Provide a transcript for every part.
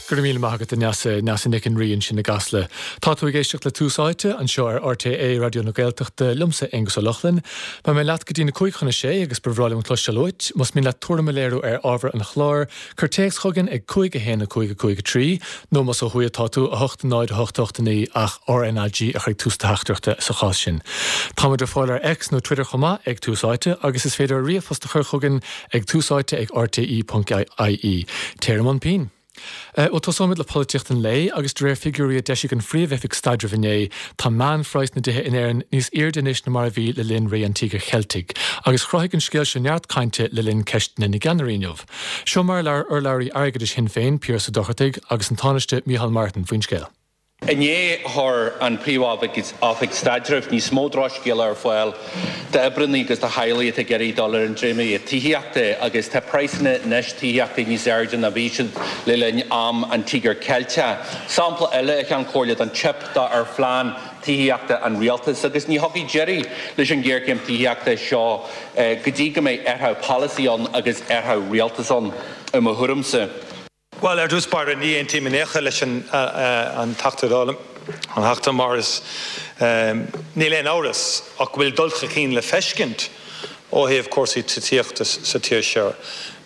Go raibh míle maith agat, a Neasa, Neasa Nic an Rí ansin i gCasla. Tá tú ag éisteacht le Tús Áite, anseo ar RTÉ Raidió na Gaeltachta, liomsa, Aonghus Ó Lochlainn. Beidh mé leat go dtí na 5:55 agus ba bhreá liom cloisteáil uait. Más mian leat tuairim a léiriú ar ábhar an chláir, cuir téacs chugainn ag 5 1 5 5 3, nó más ó thuaidh atá tú, 8 0 8 8 9 ach RnaG a chur ag tús do theachtaireachta sa chás sin. Táimid ar fáil ar X nó Twitter chomh maith ag Tús Áite agus is féidir ríomhphost a chur chugainn ag túsáite ag rte.ie. Téir i mbun pinn! Bhuel, tosóimid le polaitíocht an lae, agus de réir figiúirí a d'eisigh an Phríomh-Oifig Staidrimh inné, tá meánphraghas na dtithe in Éirinn níos airde anois ná mar a bhí le linn ré an Tíogair Cheiltigh, agus chruthaigh an scéal seo neart cainte le linn Ceisteanna na gCeannairí inniu. Seo mar a labhair urlabhraí airgeadais Shinn Féin, Piaras Ó Dochartaigh, agus an Tánaiste Micheál Martin faoin scéal. Inné chuir an Phríomh-Oifig Staidrimh níos mó drochscéala ar fáil d'oibreanna agus do theaghlaigh atá ag iarraidh dul ar an dréimire tithíochta agus tá praghsanna anois tithíochta níos airde ná bhí siad le linn am an Tíogair Ceilteach. Sampla eile, a Cheann Comhairle, den teip ar phlean tithíochta an Rialtais agus ní thiocfaidh deireadh leis an ghéarchéim tithíochta seo go dtí go mbeidh athrú polasaí ann agus athrú rialtais ann, i mo thuairimse. Bhuel, ar dtús báire, ní aontaím in aon chor leis an Teachta Dála, an Teachta Morris. Níl aon amhras ach go bhfuil dul chun cinn le feiscint ó thaobh cúrsaí titíochta sa tír seo.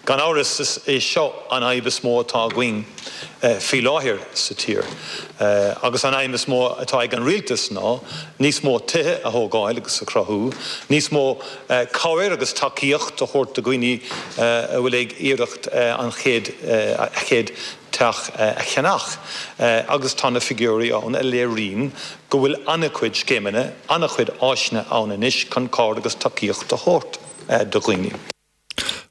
Gan amhras, is é seo an fhadhb is mó atá againn faoi láthair sa tír. Agus an aidhm is mó atá ag an Rialtas ná níos mó tithe a thógáil agus a chruthú, níos mó cabhair agus tacaíocht a thabhairt do dhaoine a bhfuil ag iarracht an chéad a chéad teach a cheannach agus tá na figiúirí ann a léiríonn go bhfuil an-chuid scéimeanna, an-chuid áiseanna ann anois chun cabhair agus tacaíocht a thabhairt do dhaoine.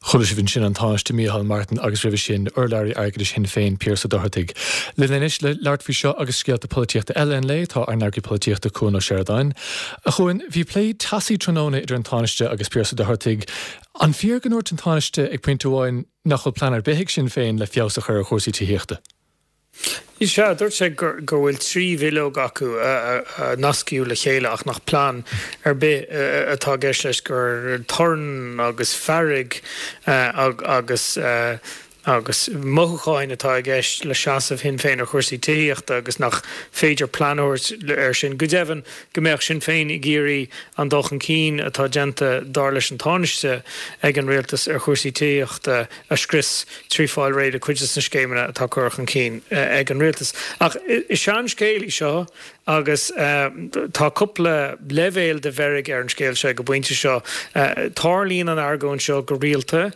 Chuala sibh ansin an Tánaiste Micheál Martin agus roimhe sin, urlabhraí airgeadais Shinn Féin, Piaras Ó Dochartaigh. Linn anois le labhairt faoi seo agus scéalta polaitíochta eile an lae, tá ár n-eagraí polaitíochta Cuan Ó Seireadáin. A Chuain, bhí plé teasaí tráthnóna idir an Tánaiste agus Piaras Ó Dochartaigh. An fíor go ndúirt an Tánaiste ag pointe amháin nach bhfuil plean ar bith ag Sinn Féin le feabhas a chur ar chúrsaí tithíochta? Sea, dúirt sé go bhfuil 3 bhileog acu a nascaíodh le chéile ach nach plean ar bith atá i gceist leis, gur torann agus fearg agus agus mothúcháin atá i gceist le seasamh Shinn Féin ar chúrsaí tithíochta agus nach féidir plean a thabhairt air sin. Go deimhin, go mbeadh Sinn Féin ag iarraidh an dul chun cinn atá déanta, dar leis an Tánaiste, ag an rialtas ar chúrsaí tithíochta a scrios trí fáil réidh le cuid de na scéimeanna atá curtha chun cinn ag an rialtas. Ach is seanscéal í seo agus tá cúpla leibhéal de mheirg ar an scéal seo ag an bpointe seo. Tarlaíonn an argóint seo go rialta,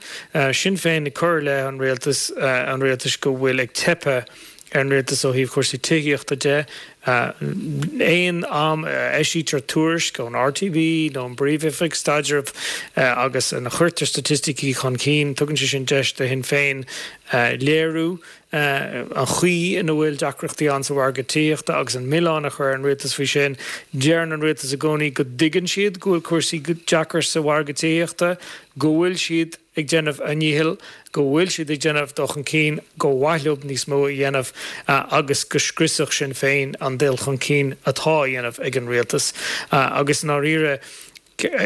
Sinn Féin ag cur i leith an rialtais, an rialtais go bhfuil ag teipeadh ar an rialtas ó thaobh chúrsaí tithíochta de. Aon am a eisítear tuairisc ón RTB nó ón bPríomh-Oifig Staidrimh agus ina chuirtear staitisticí chun cinn, tugann sé sin deis do Shinn Féin léiriú an chaoi ina bhfuil deacrachtaí ann sa mhargadh tithíochta agus an milleán a chur ar an rialtas faoi sin. Deireann an rialtas i gcónaí go dtuigeann siad go bhfuil cúrsaí deacair sa mhargadh tithíochta, go bhfuil siad ag déanamh a ndíchill, go bhfuil siad ag déanamh dul chun cinn, gur mhaith leo níos mó a dhéanamh agus go scriosfadh Sinn Féin an dul chun cinn atá á dhéanamh ag an rialtas. Agus i ndáiríre,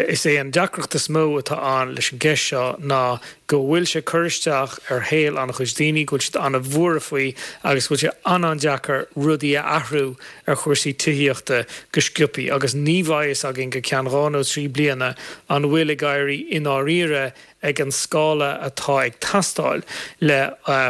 is é an deacracht is mó atá ann leis an gceist seo ná go bhfuil sé ag cur isteach ar shaol an-chuid daoine, go bhfuil siad an-bhuartha faoi agus go bhfuil sé an-an-deacair rudaí a athrú ar chúrsaí tithíochta go sciobthaí agus ní bheidh fhios againn go ceann 2 nó 3 bliana an bhfuil ag éirí i ndáiríre ag an scála atá ag teastáil le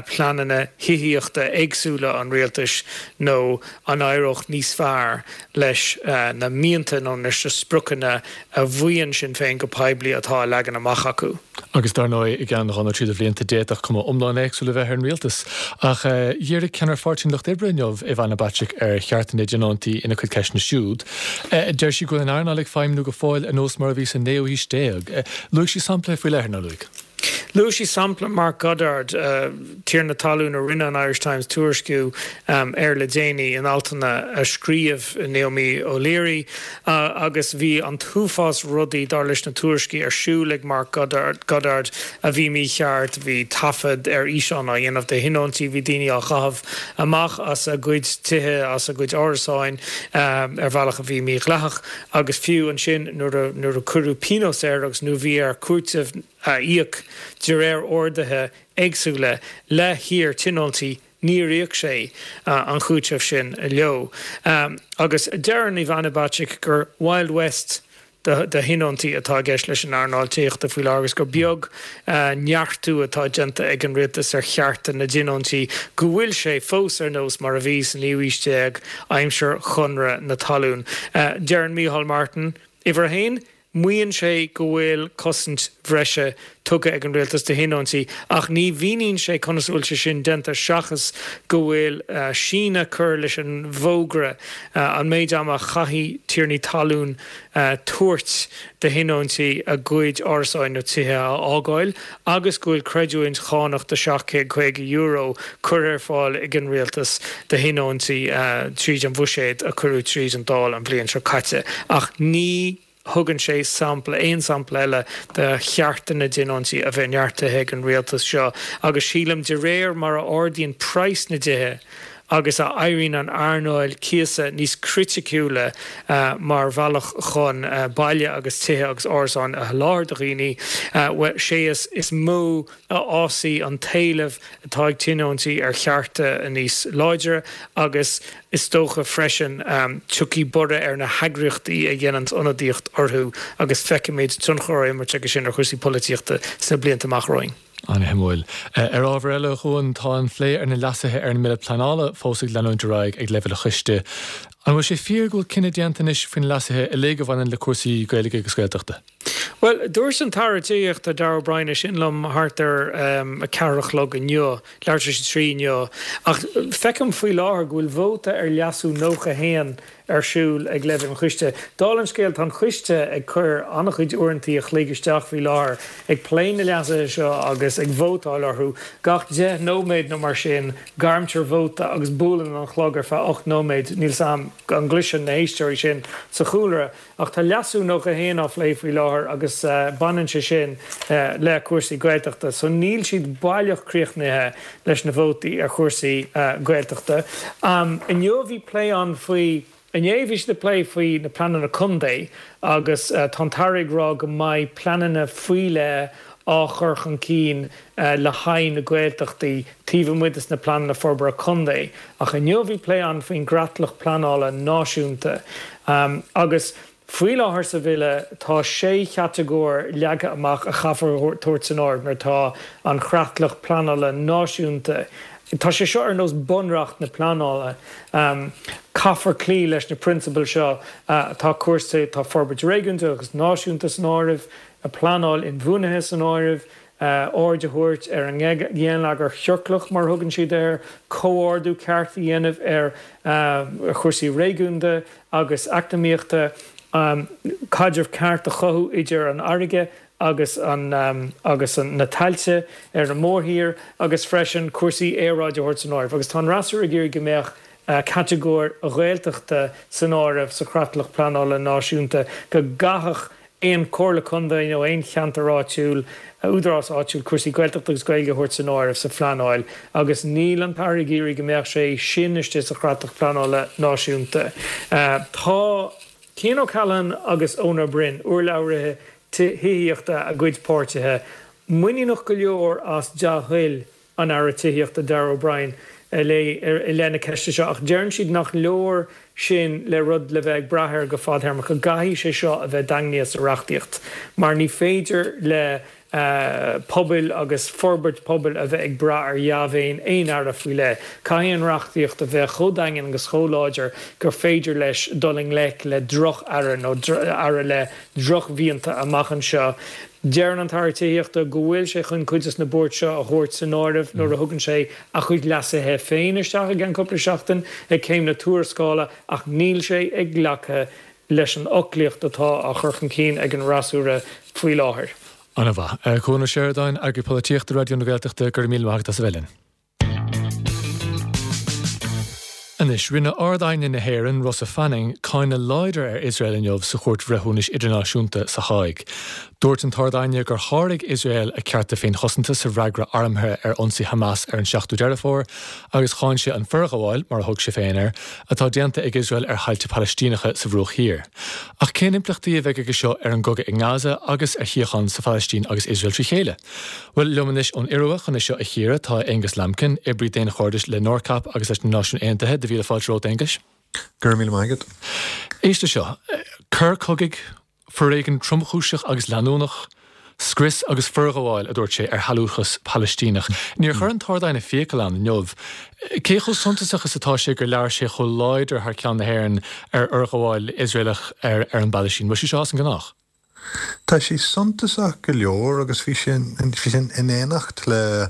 pleananna thithíochta éagsúla an rialtais nó an éireodh níos fearr leis na mianta nó leis na spriocanna a mhaíonn Sinn Féin go poiblí atá á leagan amach acu. Agus dar ndóigh, i gceann 2 nó 3 de bhlianta, d'fhéadfadh cuma iomlán éagsúil a bheith ar an rialtas. Ach dhírigh ceannaire Pháirtí an Lucht Oibre inniu, Ivana Bacik, ar chearta na dtionóntaí ina cuid ceisteanna siúd. Deir sí go bhfuil an earnáil ag feidhmniú go fóill ar nós mar a bhí sa naoú haois déag. Luaigh sí sampla faoi leith, ar nár luaigh? Luaigh sí sampla Mark Goddard, tiarna talún a rinne an Irish Times tuairisciú air le déanaí in altanna a scríobh Naomi O'Leary agus bhí an t-uafás rudaí, dar leis na tuairiscí, ar siúl ag Mark Goddard a bhí mícheart, bhí taifead ar fhíseán á dhéanamh de thionóntaí, bhí daoine á gcaitheamh amach as a gcuid tithe, as a gcuid árasáin ar bhealach a bhí mídhleathach. Agus fiú ansin nuair a cuireadh pionós air agus nuair a bhí air cúiteamh a íoc de réir orduithe éagsúla le hiar-tionóntaí. Níor íoc sé an cúiteamh sin leo. Agus deireann Ivana Bacik gur Wild West de thionóntaí atá i gceist leis an earnáil tithíochta faoi láthair agus gur beag neartú atá déanta ag an rialtas ar chearta na dtionóntaí, go bhfuil sé fós ar nós mar a bhí sa naoú haois déag, aimsir Chonradh na Talún. Deireann Micheál Martin, uimhir a haon, Maíonn sé go bhfuil cosaint bhreise tugtha ag an rialtas do thionóntaí ach ní mhíníonn sé conas a bhfuil sé sin déanta seachas go bhfuil síneadh curtha leis an bhfógra, an méid ama a chaithfidh tiarnaí talún tabhairt do thionóntaí a gcuid árasáin nó tithe a fhágáil agus go bhfuil creidiúint chánach de €750 curtha ar fáil ag an rialtas do thionóntaí tríd an bhuiséad a cuireadh tríd an Dáil an bhliain seo caite. Ach ní thugann sé sampla, aon sampla eile de chearta na dtionóntaí a bheith neartaithe ag an rialtas seo agus sílim de réir mar a ardaíonn praghas na dtithe agus a éiríonn an earnáil cíosa níos criticiúla mar bhealach chun baile agus tithe agus árasáin a sholáthar do dhaoine, bhuel, sé is mó a fhásfaidh an t-éileamh atá ag tionóntaí ar chearta níos láidre agus is dócha freisin tiocfaidh borradh ar na heagraíochtaí a dhéananns ionadaíocht orthu agus feicfimid tionchar á imirt aige sin ar chúrsaí polaitíochta sna blianta amach romhainn. An-shuimiúil. Ar ábhar eile, a Chuain, tá an phlé ar na leasuithe ar an mBille Pleanála fós ag leanúint ar aghaidh ag leibhéal an choiste. An bhfuil sé fíor go bhfuil cinneadh déanta anois faoi na leasuithe uilig a bhaineann le cúrsaí Gaeilge agus Gaeltachta? Bhuel, dúirt an tAire Tithíochta Darragh O'Brien é sin liom thart ar a ceathair a chlog inniu, leathuair tar éis a trí inniu, ach feicim faoi láthair go bhfuil vóta ar leasú 91 ar siúl ag leibhéal an choiste. Dála an scéil, tá an coiste ag cur an-chuid uaireantaí a chloig isteach faoi láthair ag plé na leasuithe seo agus ag vótáil orthu. Gach 10 nóiméad nó mar sin, gairmtear vóta agus buaileann an clog ar feadh 8 nóiméad. Níl 's a'm an gcloiseann na héisteoirí sin sa chúlra. Ach tá leasú 91 á phlé faoi láthair agus baineann sé sin le cúrsaí Gaeltachta. So níl siad baileach críochnaithe leis na vótaí ar chúrsaí Gaeltachta. Inniu bhí plé ann faoi, inné bhí siad ag plé faoi na pleananna contae agus tá an tAire ag rá go mbeidh pleananna faoi leith á chur chun cinn le haghaidh na Gaeltachtaí taobh amuigh des na pleananna forbartha contae. Ach inniu bhí plé ann faoin gcreatlach pleanála náisiúnta agus faoi láthair sa bhille tá sé chatagóir leagtha amach a chaithfear tabhairt san áireamh nuair atá an chreatlach pleanála náisiúnta Tá sé seo ar nós bunreacht na pleanála. Caithfear cloí leis na prionsabail seo. Tá cúrsaí, tá forbairt réigiúnda agus náisiúnta san áireamh. pleanáil inbhuanaithe san áireamh, aird a thabhairt ar an ngeilleagar ciorclach, mar a thugann siad air, comhordú ceart a dhéanamh ar chúrsaí réigiúnda agus eacnamaíochta, caidreamh ceart a chothú idir an fharraige agus agus na tailte ar an mórthír agus freisin cúrsaí aeráide a thabhairt san áireamh. Agus tá an fhreasúra ag iarraidh go mbeadh catagóir Ghaeltachta san áireamh sa chreatlach pleanála náisiúnta, go gcaithfeadh aon chomhairle contae nó aon cheantar áitiúil, údarás áitiúil cúrsaí Gaeltachta agus Gaeilge a thabhairt san áireamh sa phleanáil agus níl an tAire ag iarraidh go mbeadh sé sin istigh sa chreatlach pleanála náisiúnta. Tá Cian O'Callaghan agus Eoin Ó Broin, urlabhraithe tithíochta a gcuid páirtithe, muiníneach go leor as dea-thoil an Aire Tithíochta Darragh O'Brien i leith na ceiste seo ach deireann siad nach leor sin le rud le bheith ag brath air go fadthéarmach, go gcaithfidh sé seo a bheith daingnithe sa reachtaíocht mar ní féidir le pobail agus forbairt pobail a bheith ag brath ar dhea-mhéin aon aire faoi leith. Caithfidh an reachtaíocht a bheith chomh daingean agus chomh láidir gur féidir leis dul i ngleic le droch-aire nó aire le drochmhianta amach anseo. Deireann an tAire Tithíochta go bhfuil sé chun cuid des na buairt seo a thabhairt san áireamh nuair a thugann sé a chuid leasuithe féin isteach i gceann cúpla seachtain ag céim na tuarascála ach níl sé ag glacadh leis an fhoclaíocht atá á chur chun cinn ag an fhreasúra faoi láthair. An-mhaith. Cuan Ó Seireadáin, Eagraí Polaitíochta Raidió na Gaeltachta, go raibh míle maith agat as a bheith linn. Anois, rinne Ard-Aighne na hÉireann, Rosa Fanning, cáineadh láidir ar Iosrael inniu sa Chúirt Bhreithiúnais Idirnáisiúnta sa Háig. Dúirt an tArd-Aighne gur sháraigh Iosrael a cearta féinchosanta sa bhfreagra armtha ar ionsaí Hamas ar an 7ú Deireadh Fómhair agus cháin sé an forghabháil, mar a thug sé féin air, atá déanta ag Iosrael ar thailte Palaistíneacha sa Bhruach Thiar. Ach cén impleachtaí a bheidh aige seo ar an gcogadh i nGaza agus ar shíocháin sa Phalaistín agus Iosrael trí chéile? Bhuel, liom anois ón Iorua chun é seo a chíoradh tá Aonghus Lambkin, oibrí daonchairdis le NORCAP agus leis na Náisiúin Aontaithe. Do mhíle fáilte romhat, Aonghus. Go raibh míle maith agat. Éist leis seo. Coir cogaidh, foréigean tromchúiseach agus leanúnach, scrios agus forghabháil, a dúirt sé, ar shealúchas Palaistíneach. Níor chuir an tArd-Aighne fiacail ann inniu. Cé chomh suntasach is atá sé gur labhair sé chomh láidir thar ceann na hÉireann ar fhorghabháil Iosraelach ar an bPalaistín? Bhfuil sé seo as an ngnách? Tá sé suntasach go leor agus bhí sé in éineacht le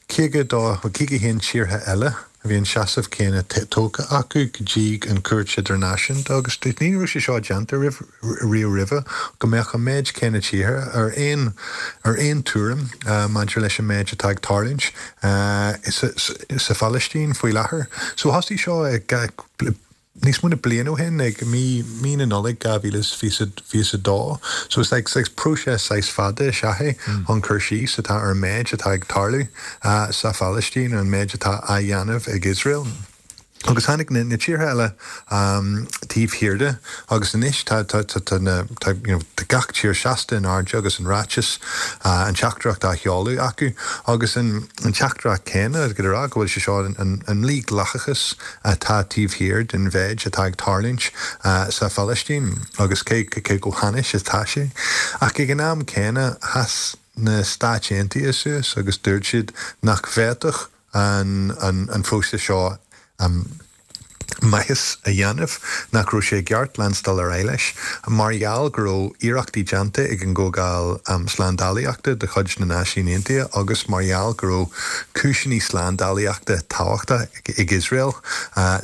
52, 51 tíortha eile a bhí an seasamh céanna tógtha acu go dtí an Chúirt Idirnáisiúnta agus ní raibh sé seo déanta riamh roimhe go mbeadh an méid céanna tíortha ar aon ar aon tuairim maidir leis an méid atá ag tarlúint sa Phalaistín faoi láthair. So thosaigh seo ag níos mó na bliain ó shin, ag mí mí na Nollag 2022. So is like saghas próiseas saghas fada is ea é chun cur síos atá ar an méid atá ag tarlú sa Phalaistín, ar an méid atá á dhéanamh ag Iosrael. Agus tháinig na na tíortha eile taobh thiar de agus anois tá tá tá tá na tá you know tá gach tír seasta in airde agus an ráiteas an teachtaireacht á sheoladh acu agus an an teachtaireacht céanna ag rá go bhfuil sé seo an an mhídhleathachas atá taobh thiar den mhéid atá ag tarlúint sa Phalaistín agus cé chomh hainnis atá sé. Ach ag an am céanna, sheas na Stáit Aontaithe suas agus dúirt siad nach bhféadfadh an phróiseas seo maitheas a dhéanamh, nach raibh sé i gceart leanstáil ar aghaidh leis mar gheall go raibh iarrachtaí déanta ag an gComhdháil Slándálaíochta de chuid na Náisiún Aontaithe agus mar gheall go raibh cúiseanna slándálaíochta tábhachtach ag Iosrael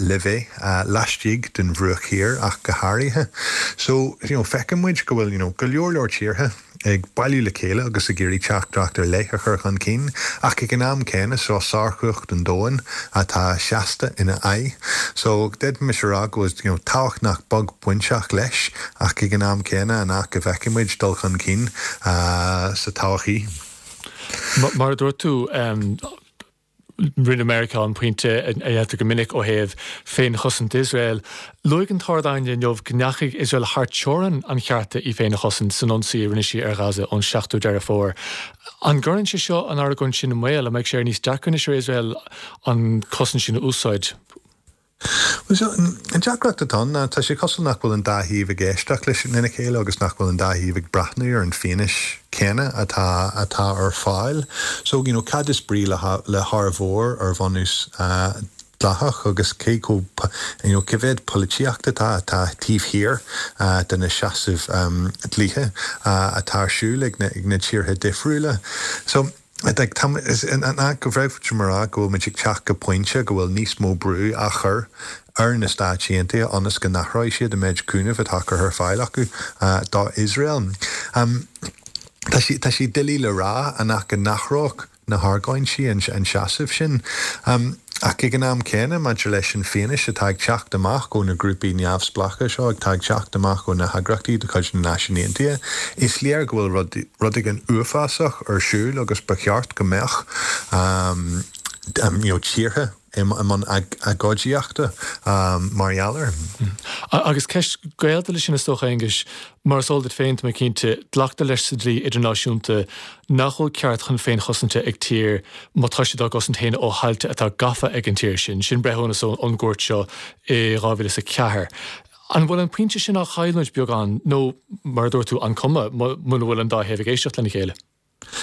le bheith laistigh den Bhruach Thiar ach go háirithe. So, you know, feiceann muid go bhfuil, you know, go leor leor tíortha ag bailiú le chéile agus ag iarraidh teachtaireacht ar leith a chur chun cinn ach ag an am céanna seo sárchumhacht an domhain atá seasta ina aghaidh. So, d'fhéadfaimis a rá go bhfuil, you know, tábhacht nach beag bainteach leis ach ag an am céanna an ea go bhfeicfidh muid dul chun cinn sa todhchaí. Mar a dúirt tú, Rinne Meiriceá an pointe a dhéantar go minic ó thaobh féinchosaint Iosrael. Luaigh an tArd-Aighne inniu go ndeachaigh Iosrael thar teorainn an chearta í féin a chosaint san ionsaí a rinne sí ar Ghaza ón 7ú Deireadh Fómhair. An gcuireann sé seo an argóint sin i mbaol? An mbeidh sé níos deacra anois ar Iosrael an chosaint sin a úsáid? Bhuel, so, an deacracht atá ann ná tá sé cosúil nach bhfuil an dá thaobh ag éisteacht leis lena chéile agus nach bhfuil an dá thaobh ag breathnú ar an fianaise céanna atá atá ar fáil. So, you know, cad is brí le le hár mhór ar bhunús dleathach agus cé chomh, you know, cé mhéad polaitíocht atá atá taobh thiar de na seasaimh dlíthe atá ar siúl ag na ag na tíortha difriúla. So, An ea go bhféadfaimis a rá go bhfuil muid ag teacht go pointe go bhfuil níos mó brú á chur ar na Stáit Aontaithe ionas go n-athróidh siad an méid cúnaimh atá curtha ar fáil acu do Iosrael? Tá sé tá sé doiligh le rá an ea go n-athródh na hargóintí an seasamh sin. Ach ag an am céanna, maidir leis an fianaise atá ag teacht amach ó na grúpaí neamhspleácha seo, atá ag teacht amach ó na heagraíochtaí de chuid na Náisiún Aontaithe, is léir go bhfuil rud, rud éigin uafásach ar siúl agus ba cheart go mbeadh you know tíortha i mbun agóidíochta mar gheall air. Agus ceist gaolta leis sin is dócha, Aonghuis, Mar is eol duit féin, tá mé cinnte, glactar leis sa dlí idirnáisiúnta nach bhfuil ceart chun féinchosanta ag tír má tá siad á gcosaint féin ó thailte atá gafa ag an tír sin. Sin breithiúnas ón gcúirt seo i 2004. An bhfuil an pointe sin á chailliúint beagán nó, mar a dúirt tú, an cuma muna bhfuil an dá thaobh ag éisteacht lena chéile?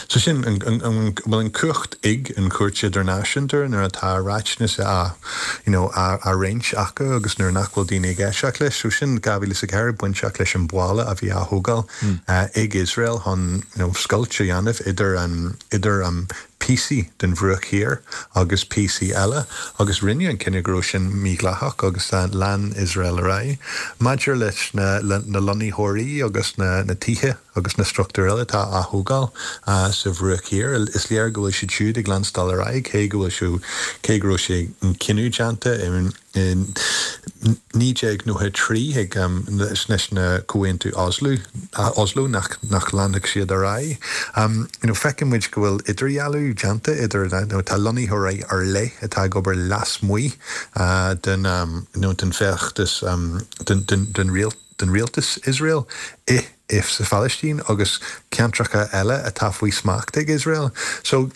So sin, an bhfuil an cumhacht ag an Chúirt Idirnáisiúnta nuair atá ráiteas á, you know, á roinnt acu agus nuair nach bhfuil daoine ag éisteacht leis. So sin 2004 bainteach leis an bhalla a bhí á thógáil ag Iosrael chun, you know, scoilt a dhéanamh idir an, idir an. píosaí den Bhruach Thiar agus píosaí eile agus rinneadh an cinneadh go raibh sin mídhleathach agus lean Iosrael ar aghaidh. Maidir leis na lonnaitheoirí agus na tithe agus na struchtúir eile atá á thógáil sa Bhruach Thiar, is léir go bhfuil siad siúd ag leanstáil ar aghaidh cé go bhfuil cé go raibh sé an cinneadh déanta i In 1993 ag leis na Comhaontú Oslo, Oslo nach nach leanfadh siad ar aghaidh. You know feiceann muid go bhfuil idirdhealú déanta idir you know tá lonnaitheoirí ar leith atá ag obair lasmuigh den you know den feachtas den den den den rialtas Iosrael i i sa Phalaistín agus ceantracha eile atá faoi smacht ag Iosrael. So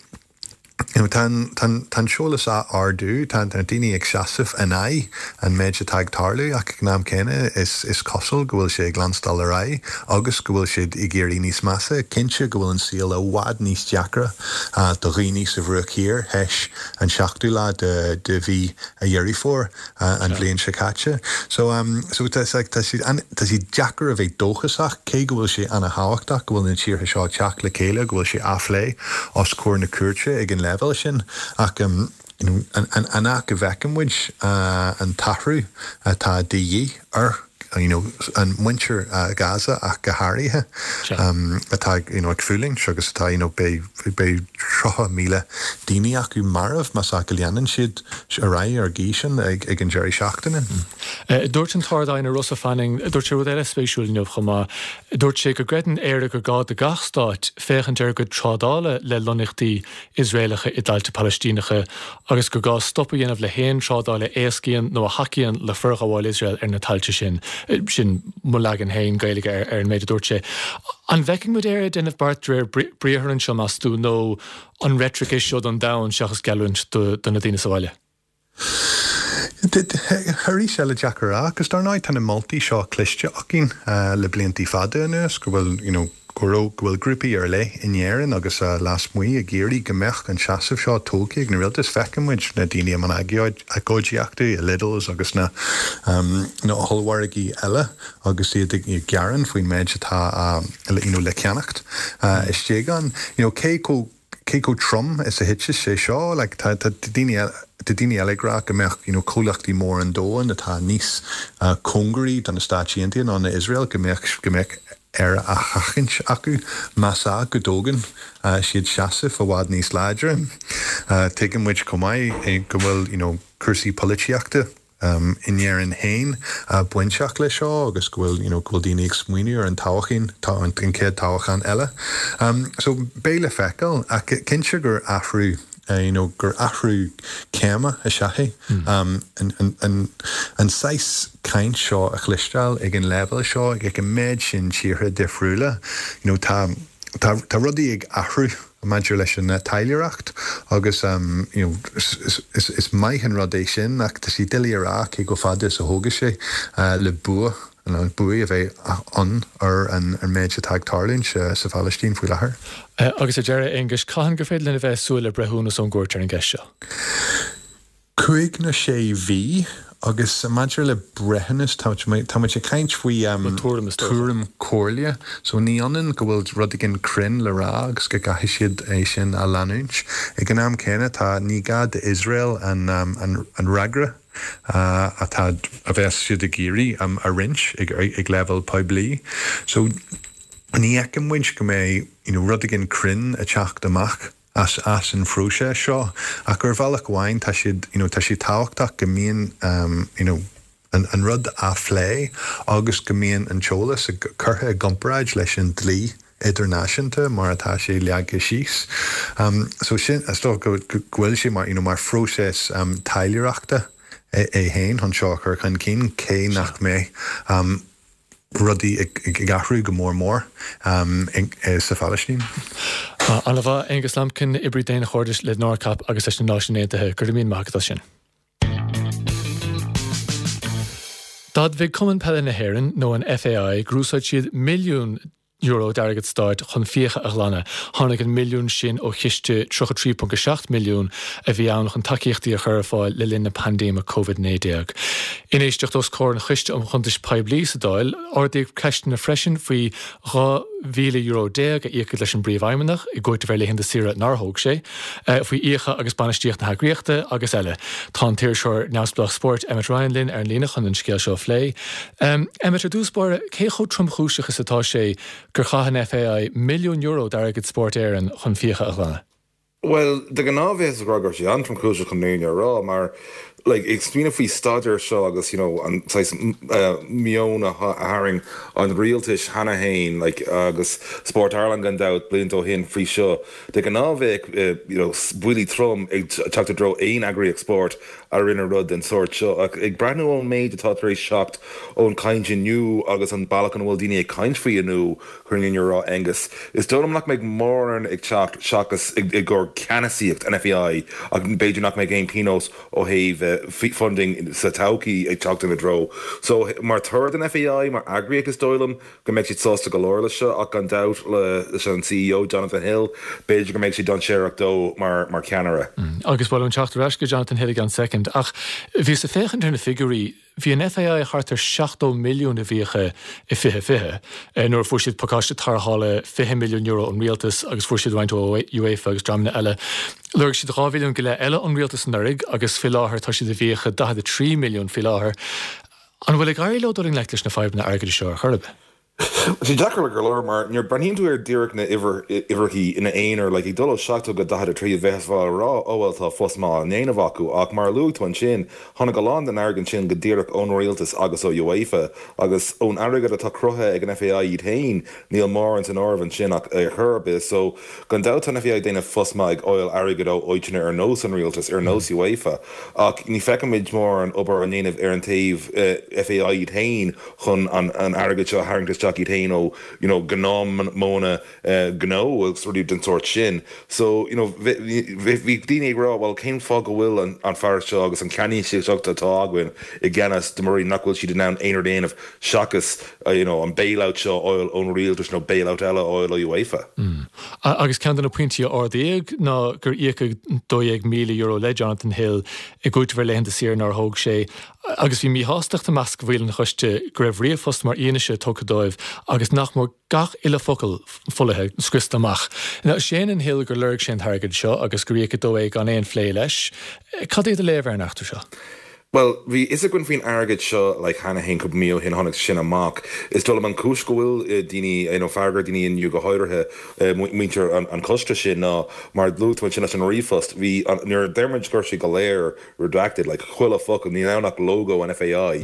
Tá an t-eolas á ardú, tá na daoine ag seasamh in aghaidh an méid atá ag tarlú ach ag an am céanna is cosúil go bhfuil sé ag leanstáil ar aghaidh agus go bhfuil siad ag éirí níos measa. Cinnte go bhfuil an saol i bhfad níos deacra do dhaoine sa Bhruach Thiar théis an seachtú lá de mhí Dheireadh Fómhair. an bhliain seo caite. So so tá sé tá sé tá sé deacair a bheith dóchasach cé go bhfuil sé ana-thábhachtach go bhfuil na tíortha seo ag teacht le chéile, go bhfuil sé á phlé os comhair na cúirte ag an leibhéal sin ach you know an an an áit go bhfeiceann muid an t-athrú atá de dhíth ar you know an muintir Gaza ach go háirithe atá you know ag fulaingt agus atá you know beidh beidh 30,000 daoine acu marbh más ea go leanann siad ar aghaidh ar an gcaoi sin ag ag an deireadh seachtaine. Dúirt an tArd-Aighne Rossa Fanning, dúirt sé rud eile spéisiúil inniu chomh maith, dúirt sé go gcreideann Éire gur gá do gach stát féachaint ar a gcuid trádála le lonnaíochtaí Iosraelacha i dtailte Palaistíneacha agus gur gá stop a dhéanamh le haon trádáil a éascaíonn nó a thacaíonn le forghabháil Iosrael ar na tailte sin. Sin mo leagan féin Gaeilge ar an méid a dúirt sé. An bhfeicfidh muid Éire ag déanamh beart de réir briathair anseo, meas tú, nó an reitric é seo don domhan seachas geallúint do na daoine sa bhaile? Arís eile, deacair a rá, agus dar ndóigh tá na moltaí seo cloiste againn le bliantaí fada anuas go bhfuil, you know, go raibh, go bhfuil grúpaí ar leith in Éirinn agus lasmuigh ag iarraidh go mbeadh an seasamh seo tógtha ag na rialtais. Feiceann muid na daoine i mbun agóidíochta i Lidl's agus na na hollmhargaí eile agus iad ag gearán faoin méid atá you know le ceannacht istigh ann. You know, cé chomh cé chomh trom is a thitfeas sé seo? Like, tá, tá daoine eile, tá daoine eile ag rá go mbeadh, you know, comhlachtaí móra an domhain atá níos cóngaraí do na Stáit Aontaithe ná na Iosrael, go mbeadh, go mbeadh Éire á sheachaint acu más ea go dtógann siad seasamh i bhfad níos láidre. Tuigeann muid chomh maith go bhfuil, you know, cúrsaí polaitíochta, in Éirinn féin bainteach leis seo agus go bhfuil you know go bhfuil daoine ag smaoineamh ar an toghchán, an chéad toghchán eile. So beidh le feiceáil ach cinnte gur athrú you know gur athrú céime is ea é an an an saghas caint seo a chloisteáil ag an leibhéal seo ag an méid sin tíortha difriúla you know tá tá tá rudaí ag athrú. Maidir leis an taidhleoireacht agus you know is maith an rud é sin ach tá sé doiligh a rá cé chomh fada is a thógfaidh sé le bua nó buaidh a bheith ann ar an méid atá ag tarlúint sa Phalaistín faoi láthair. Agus ar deireadh, a Aonghuis, cathain gur féidir linn a bheith ag súil le breithiúnas ón gcúirt ar an gceist seo? 5 nó 6 mhí agus maidir le breithiúnas tá muid ag caint faoi tuairim comhairle so ní ionann go bhfuil rud éigin cruinn le rá agus go gcaithfidh siad é sin a leanúint. Ag an am céanna tá ní gá d'Iosrael an an fhreagra atá a bheas siad ag iarraidh a roinnt ag leibhéal poiblí so ní fheiceann muid go mbeidh you know rud éigin cruinn ag teacht amach as as an phróiseas seo ach ar bhealach amháin tá siad you know tá sé tábhachtach go mbíonn you know an an rud á phlé agus go mbíonn an t-eolas curtha i gcomparáid leis an dlí idirnáisiúnta mar atá sé leagtha síos. So sin is dócha go go bhfuil sé mar you know mar phróiseas taidhleoireachta é é féin chun seo a chur chun cinn cé nach mbeidh rudaí ag athrú go mór mór sa Phalaistín. Ana-mhaith, Aonghus Lambkin, oibrí daonchairdis le NORCAP agus leis na Náisiúin Aontaithe. Go raibh míle maith agat as sin. D'admhaigh Cumann Peile na hÉireann, nó an FAI, gur úsáid siad milliún euro d'airgead stáit chun fiacha a ghlanadh. Tháinig an milliún sin ó chiste 33.7 milliún a bhí ann chun tacaíochtaí a chur ar fáil le linn na paindéime Covid-19. In éisteacht os comhair an Choiste um Chuntais Poiblí sa Dáil, ardaíodh ceisteanna freisin faoi. €12,000 a íocadh leis an bPríomhfheidhmeannach i gcúiteamh ar laethanta saoire nár thóg sé, faoi fhiacha agus bainistíocht na heagraíochta agus eile. Tá an t-iriseoir neamhspleách spóirt Emmet Ryan linn ar an líne chun an scéal seo a phlé. Emmet, ar dtús báire, cé chomh tromchúiseach is atá sé gur chaith an FAI €1,000,000 d'airgead Spórt Éireann chun fiacha a ghlanadh? Bhuel, de ghnáth bheifeá ag rá go raibh sé an-tromchúiseach chun an fhírinne a rá, mar like ag smaoineamh faoi staidéar seo agus you know an saghas meon a tharraing an rialtais cheana féin like agus Sport Ireland gan dabht blianta ó shin faoi seo, de ghnáth bheadh you know buillí trom ag teacht i dtreo aon eagraíocht spóirt a rinne rud den sórt seo. Ach ag breathnú ón méid atá tar éis teacht ón chaint inniu agus an bealach ina bhfuil daoine ag caint faoi inniu, chun an fhírinne a rá Aengus, is dóigh liom nach mbeidh mórán ag teacht seachas i gcomhair ceannasaíocht an FAI ach b'fhéidir nach mbeidh aon pionós ó thaobh funding sa todhchaí ag teacht ina dtreo. So mar thoradh don FAI, mar eagraíocht is dóigh liom go mbeidh siad sásta go leor leis seo ach gan dabht leis an CEO Jonathan Hill, b'fhéidir go mbeidh sé dainséarach dó mar cheannaire. Agus ba mhaith liom teacht ar ais go Jonathan Hill i gceann soicind ach bhíos ag féachaint ar na figiúirí, Bhí an FAI thart ar 70 milliún i bhfiacha i 2020, nuair a fuair siad pacáiste tarrthála €20 milliún ón rialtas agus fuair siad roinnt ó UEFA agus dreamanna eile. Lorg siad 2 mhilliún go leith eile ón rialtas anuraidh agus faoi láthair tá siad i bhfiacha 43 milliún faoi láthair. An bhfuil ag éirí leo dul i ngleic leis na fadhbanna airgeadais seo ar chor ar bith? Tá sé deacair go leor mar nuair breathnaíonn tú ar díreach na uimhreachaí ina aonar, like ag dul ó 70 go 43 bheifeá ag rá oh well tá pos maith á ndéanamh acu ach mar a luaigh tú ansin tháinig a lán den airgead sin go díreach ón rialtas agus ó UEFA agus ón airgead atá cruthaithe ag an FAI iad féin níl mórán san áireamh ansin ach ar chor ar bith so gan dabht tá an FAI ag déanamh pos maith ag fháil airgead ó áiteanna ar nós an rialtas ar nós UEFA ach ní feicimid mórán obair á ndéanamh ar an taobh FAI iad féin chun an airgead seo a tharraingt isteach iad féin ó you know gnáthmhodhanna gnó agus rudaí den sórt sin. So you know bhí daoine ag rá bhuel cén fáth go bhfuil an fear seo agus an ceannasaíocht atá againn i gceannas de mar nach bhfuil siad in ann aon rud a dhéanamh seachas you know an bailout seo a fháil ón rialtas nó bailout eile a fháil ó UEFA. Agus ceann de na pointí a ardaíodh ná gur íocadh €12,000 le Jonathan Hill i gcúiteamh ar laethanta saoire nár thóg sé. Agus bhí míshástacht i measc bhaill an choiste go raibh ríomhphost mar fhianaise tugtha dóibh agus nach mór gach uile focal folaithe, scriosta amach. Now, séanann Hill gur lorg sé an t-airgead seo agus gur íocadh dó é gan aon phlé leis. Cad é do léamh ar an eachtra seo? Bhuel, bhí fhios againn faoin airgead seo like cheana féin cúpla mí ó shin tháinig sin amach. Is dóigh liom an chúis go bhfuil daoine, you know, fearg ar daoine inniu go háirithe muintir an choiste sin ná mar luaigh tú ansin leis an ríomhphost, bhí an, nuair a deir muid go raibh sé go léir redacted, like chuile focal, níl ann ach logo an FAI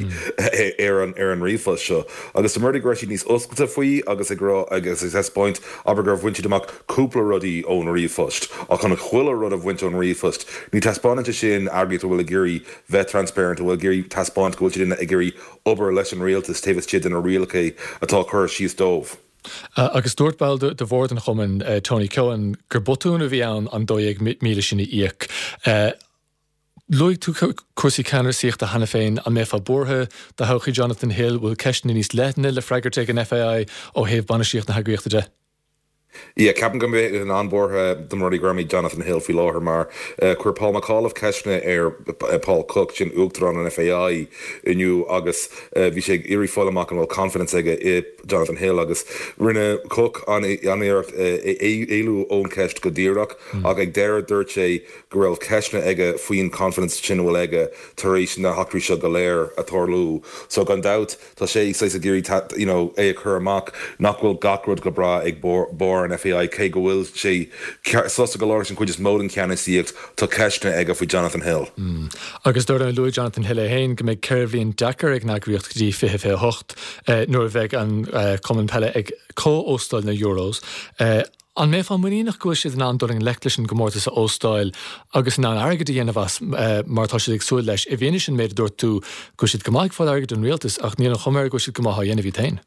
ar an ar an ríomhphost seo. Agus dá mba rud é go raibh siad níos oscailte faoi agus ag rá agus ag taispeáint, abair gur bhain siad amach cúpla rudaí ón ríomhphost, ach chun chuile rud a bhaint ón ríomhphost, ní taispeánann sé sin eagraíocht a bhfuil ag iarraidh bheith transparent, a bhfuil ag iarraidh taispeáint go bhfuil siad ag iarraidh obair leis an rialtas taobh istigh de na rialacha atá curtha síos dóibh. Agus dúirt ball de bhord an chumainn, Tony Keohane, gur botún a bhí ann an 12,000 sin a íoc. Luaigh tú cúrsaí ceannasaíochta cheana féin. An mbeifeá buartha do thodhchaí Jonathan Hill? Bhfuil ceisteanna níos leithne le freagairt ag an FAI ó thaobh bainistíocht na heagraíochta de? Yeah, ceapaim go mbeinn an-bhuartha dá mba rud é gurb é Jonathan Hill faoi láthair mar chuir Paul McAuliffe ceisteanna ar Paul Cooke, sin Uachtarán an FAI, inniu agus bhí sé ag iarraidh fáil amach an bhfuil confidence aige i Jonathan Hill agus rinne Cooke an-iarracht éalú ón cheist go díreach ach ag deireadh dúirt sé go raibh ceisteanna aige faoin confidence sin a bhfuil aige tar éis na heachtraí seo go léir a tarlú. So gan dabht tá sé saghas ag iarraidh you know é a chur amach nach bhfuil gach rud go breá ag barr an FAI cé go bhfuil sé sásta go leor leis an chuid is mó den cheannasaíocht tá ceisteanna aige faoi Jonathan Hill. Agus dar ndóigh luaigh Jonathan Hill é féin go mbeidh 4 bhliain deacair ag an eagraíocht go dtí 2028 nuair a bheidh an cumann peile ag comh-óstáil na Euros. An mbeifeá muiníneach go bhfuil siad in ann dul i ngleic leis an gcomórtas a óstáil agus in ann airgead a dhéanamh as mar atá siad ag súil leis, i bhfianaise an méid a dúirt tú go bhfuil siad go maith ag fáil airgid ón rialtas ach níl an chuma air go bhfuil siad go maith á dhéanamh iad féin?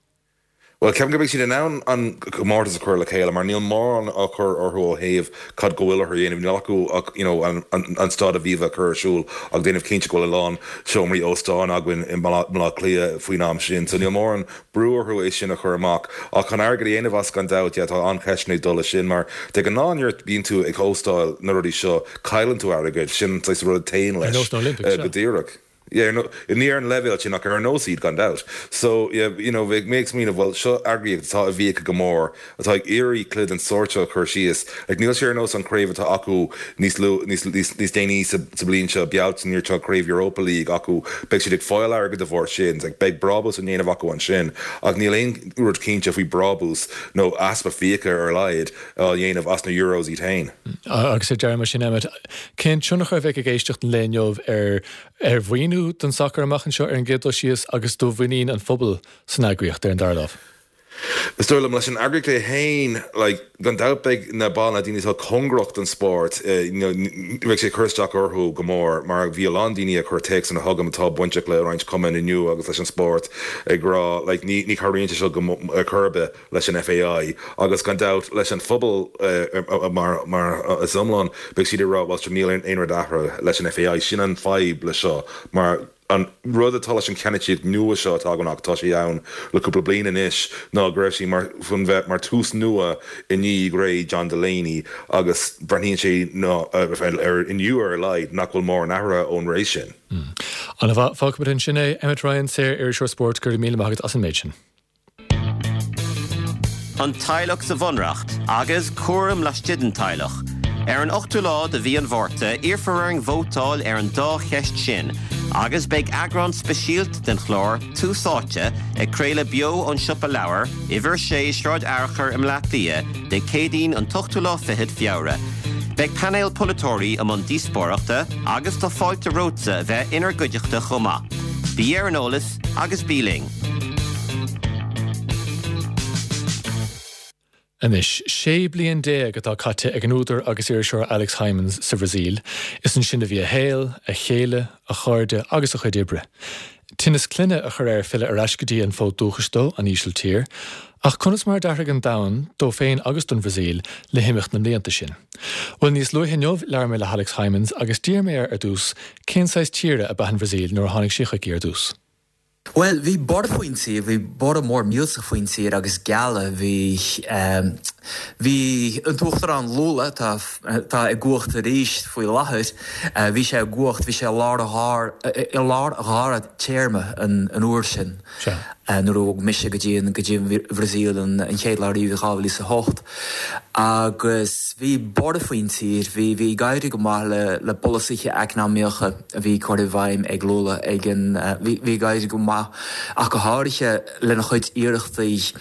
Bhuel, ceapaim go mbeidh siad in ann an comórtas a chur le chéile mar níl mórán á chur orthu ó thaobh cad go bhfuil orthu a dhéanamh. Níl acu ach you know an Staid Aviva a chur ar siúl ach déanamh cinnte go bhfuil a lán seomraí óstáin againn i mBaile Átha Cliath faoin am sin. So níl mórán brú orthu é sin a chur amach. Ach chun airgead a dhéanamh as gan dabht, yeah, tá an-cheisteanna ag dul leis sin mar de ghnáth nuair a bíonn tú ag óstáil na rudaí seo cailleann tú airgead, sin an saghas rud a théann leis Ar nós na Olympics, go díreach. Yeah, no, ní ar an leibhéal sin ach ar nós iad gan dabht. So, yeah, you know, bheadh mé ag smaoineamh, bhuel, seo eagraíocht atá i bhfiacha go mór, atá ag iarraidh cluiche den sórt seo a chur síos. Like, níl sé ar nós an chraobh atá acu níos lu, níos, níos, níos déanaí sa, sa bhliain seo, Bealtaine, tá craobh Europa League acu, beidh siad ag fáil airgead de bharr sin, like, beidh brabús á ndéanamh acu ansin, ach níl aon rud cinnte faoi brabús nó easpa fiacha ar a laghad á dhéanamh as na Euros iad féin. Agus ar deireadh mar sin, Emmet, cén tionchar a bheidh ag éisteacht an lae inniu ar ar mhaoiniú don sacar amach anseo ar an gcéad dul síos agus do mhuinín an phobail san eagraíocht ar an dara lámh? Is dóigh liom, leis an eagraíocht é féin, like, gan dabht beidh na baill, na daoine atá cóngarach don spórt, you know, beidh sé ag cur isteach orthu go mór mar bhí a lán daoine a chuir téacsanna chugam atá bainteach le roinnt cumainn inniu agus leis an spórt ag rá, like, ní, ní chabhraíonn sé seo go, ar chor ar bith. leis an FAI agus gan dabht leis an phobal mar is iomlán, beidh siad ag rá bhuel sure níl aon rud athraithe leis an FAI. Sin an fadhb le seo mar an rud atá leis an cheannasaíocht nua seo atá againn ach tá sé ann le cúpla bliain anois ná go raibh sí mar chun bheith mar tús nua i ndiaidh ré John Delaney agus breathnaíonn sé ná ar inniu ar a laghad nach bhfuil mórán athraithe ón ré sin. Ana-mhaith, fágfaimid ansin é. Emmet Ryan, saor-iriseoir spóirt, go raibh míle maith agat as an méid sin. An teaghlach sa Bhunreacht agus cúram laistigh den teaghlach. Ar an ochtú lá de mhí an Mhárta, iarrfar orainn vótáil ar an dá cheist sin agus beidh eagrán speisialta den chlár Tús Áite ag craoladh beo ón Siopa Leabhar, Uimhir 6, Sráid Fhearchair i mBleá Cliath, Dé Céadaoin an t-ochtú lá fichead Feabhra. Beidh painéal polaiteoirí i mbun díospóireachta agus tá fáilte romhatsa a bheith inár gcuideachta chomh maith. Bí ar an eolas agus bí linn! Anois, 16 bliain atá caite ag an údar agus iriseoir Alex Hijmans sa Bhrasaíl. Is ansin a bhí a shaol, a chéile, a chairde agus a chuid oibre. Tinneas clainne a chuir air filleadh ar ais go dtí an fód dúchais dó, an Ísiltír. Ach conas mar a d'athraigh an domhan, dó féin agus don Bhrasaíl, le himeacht na mblianta sin? Bhuel, níos luaithe inniu, labhair mé le hAlex Hijmans agus d'iarr mé air ar dtús cén saghas tíre ab ea an Bhrasaíl nuair a tháinig sé chuici ar dtús. Bhuel, bhí borradh faoin tír, bhí borradh mór millteach faoin tír agus gealladh, bhí, bhí an tUachtarán Lula, atá, atá i gcumhacht arís faoi láthair, bhí sé i gcumhacht, bhí sé i lár a dhár, i lár a dhara téarma an, an uair sin, nuair a bhog mise go dtí an, go dtí an Bhrasaíl an, an chéad lá riamh i 2008. Agus bhí borradh faoin tír, bhí, bhí ag éirí go maith le, le polasaithe eacnamaíocha. a bhí curtha i bhfeidhm ag Lula ag an bhí ag éirí go maith ach go háirithe lena chuid iarrachtaí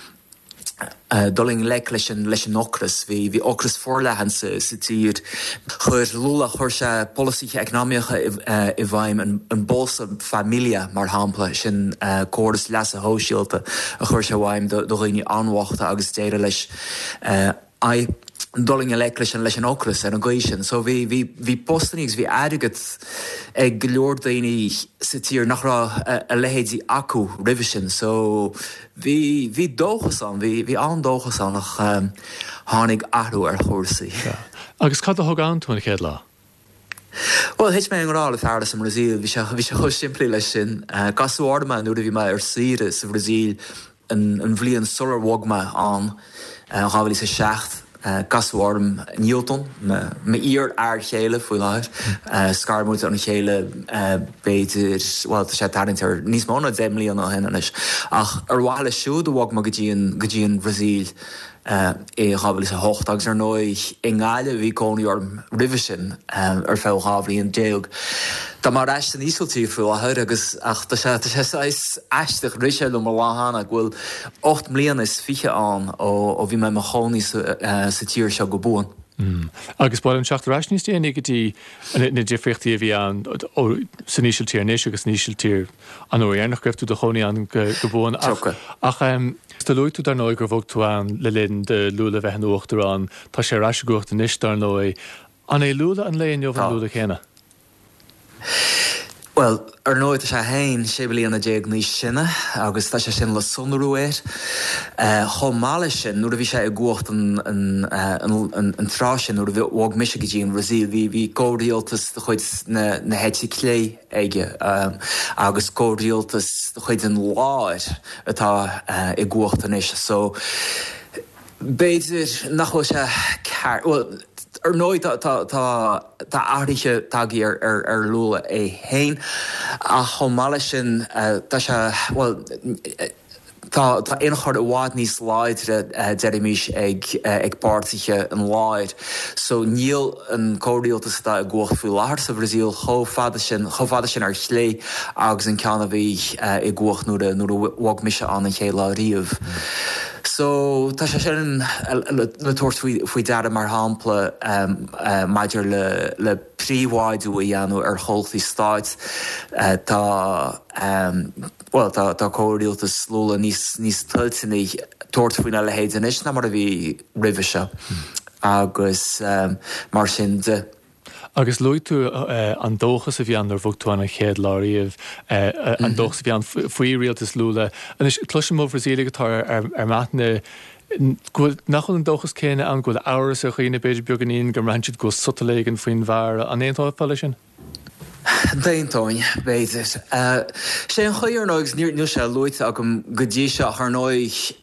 dul i ngleic leis an leis an ocras. Bhí bhí ocras forleathan sa sa tír. Chuir Lula chuir sé polasaithe eacnamaíocha i bhfeidhm an an Bolsa Família mar shampla, sin córas leasa shóisialta a chuir sé i bhfeidhm do do dhaoine an-bhochta agus d'éirigh leis aghaidh dul i ngleic leis an leis an ocras ar an gcaoi sin. So bhí bhí bhí postannaí agus bhí airgead ag go leor daoine sa tír nach raibh a leithéidí acu roimhe sin. So bhí bhí dóchas ann, bhí bhí an-dóchas ann ach tháinig athrú ar chúrsaí. Sea. Agus cad a thug ann tú an chéad lá? Bhuel, thit mé i ngrá le fear as an mBrasaíl, bhí sé bhí sé chomh simplí leis sin. Casadh orm é nuair a bhí mé ar saoire sa Bhrasaíl an bhliain sular bhog mé ann, 2007. Casadh orm Nilton, m'iar-fhear chéile faoi láthair. Scar muid óna chéile b'fhéidir, bhuel tá sé ag tarraingt ar níos mó ná 10 mbliana ó shin anois. Ach ar mhaithe leis siúd a bhog mé go dtí an, go dtí an Bhrasaíl. i 2008 agus ar ndóigh i nGaillimh a bhí cónaí orm roimhe sin ar feadh 12 bhliain. Tá mé ar ais san Ísiltír faoi láthair agus ach tá sé tá sé saghas aisteach, rith sé liom an lá cheana go bhfuil 8 mbliana is fiche ann ó ó bhí mé i mo chónaí sa sa tír seo go buan. Agus ba mhaith liom teacht ar ais níos déanaí go dtí na difríochtaí a bhí ann san Ísiltír anois agus san Ísiltír an uair dheireanach go raibh tú i do chónaí ann go buan. Ach do luaigh tú dar ndóigh gur bhog tú ann le linn do Lula bheith ina uachtarán. Tá sé ar ais i gcumhacht anois dar ndóigh. An é Lula an lae inniu an Lula céanna? Bhuel, ar ndóigh tá sé féin 16 bliana níos sine agus tá sé sin le sonrú air. Chomh maith leis sin, nuair a bhí sé i gcumhacht an tráth sin, nuair a bhog mise go dtí an Bhrasaíl, bhí comhrialtas de chuid na heite clé aige agus comhrialtas de chuid an láir atá i gcumhacht anois. So, b'fhéidir nach bhfuil sé ceart, bhuel. Ar ndóigh tá tá tá athruithe tagtha ar ar Lula é féin ach chomh maith leis sin tá sé, bhuel, Tá ionchur i bhfad níos láidre, deirimis, ag ag páirtithe an láir. So níl an comhrialtas atá i gcumhacht faoi láthair sa Bhrasaíl chomh fada sin, chomh fada sin ar chlé agus an ceann a bhí i gcumhacht nuair a nuair a bhog mise ann an chéad lá riamh. So tá sé sin le tabhairt faoi faoi deara mar shampla maidir le le príobháidiú a dhéanamh ar chomhlachtaí stáit. Tá. Bhuel, tá tá comhrialtas Lula níos níos toilteanaí tabhairt faoina leithéid anois ná mar a bhí roimhe seo agus mar sin de. Agus luaigh tú an dóchas a bhí ann nuair a bhog tú ann an chéad lá riamh, an dóchas a bhí ann faoi rialtas Lula. Anois, cloisim ó Bhrasaíligh atá ar ar m'aithne go bhfuil, nach bhfuil an dóchas céanna ann, go bhfuil amhras ar dhaoine b'fhéidir beagáinín, go mbraitheann siad go bhfuil sotal éigin faoin bhfear. An aontófá leis sin? D'aontóinn, b'fhéidir. Sé an chaoi, ar ndóigh, agus níl sé luaite agam go dtí seo, ach ar ndóigh,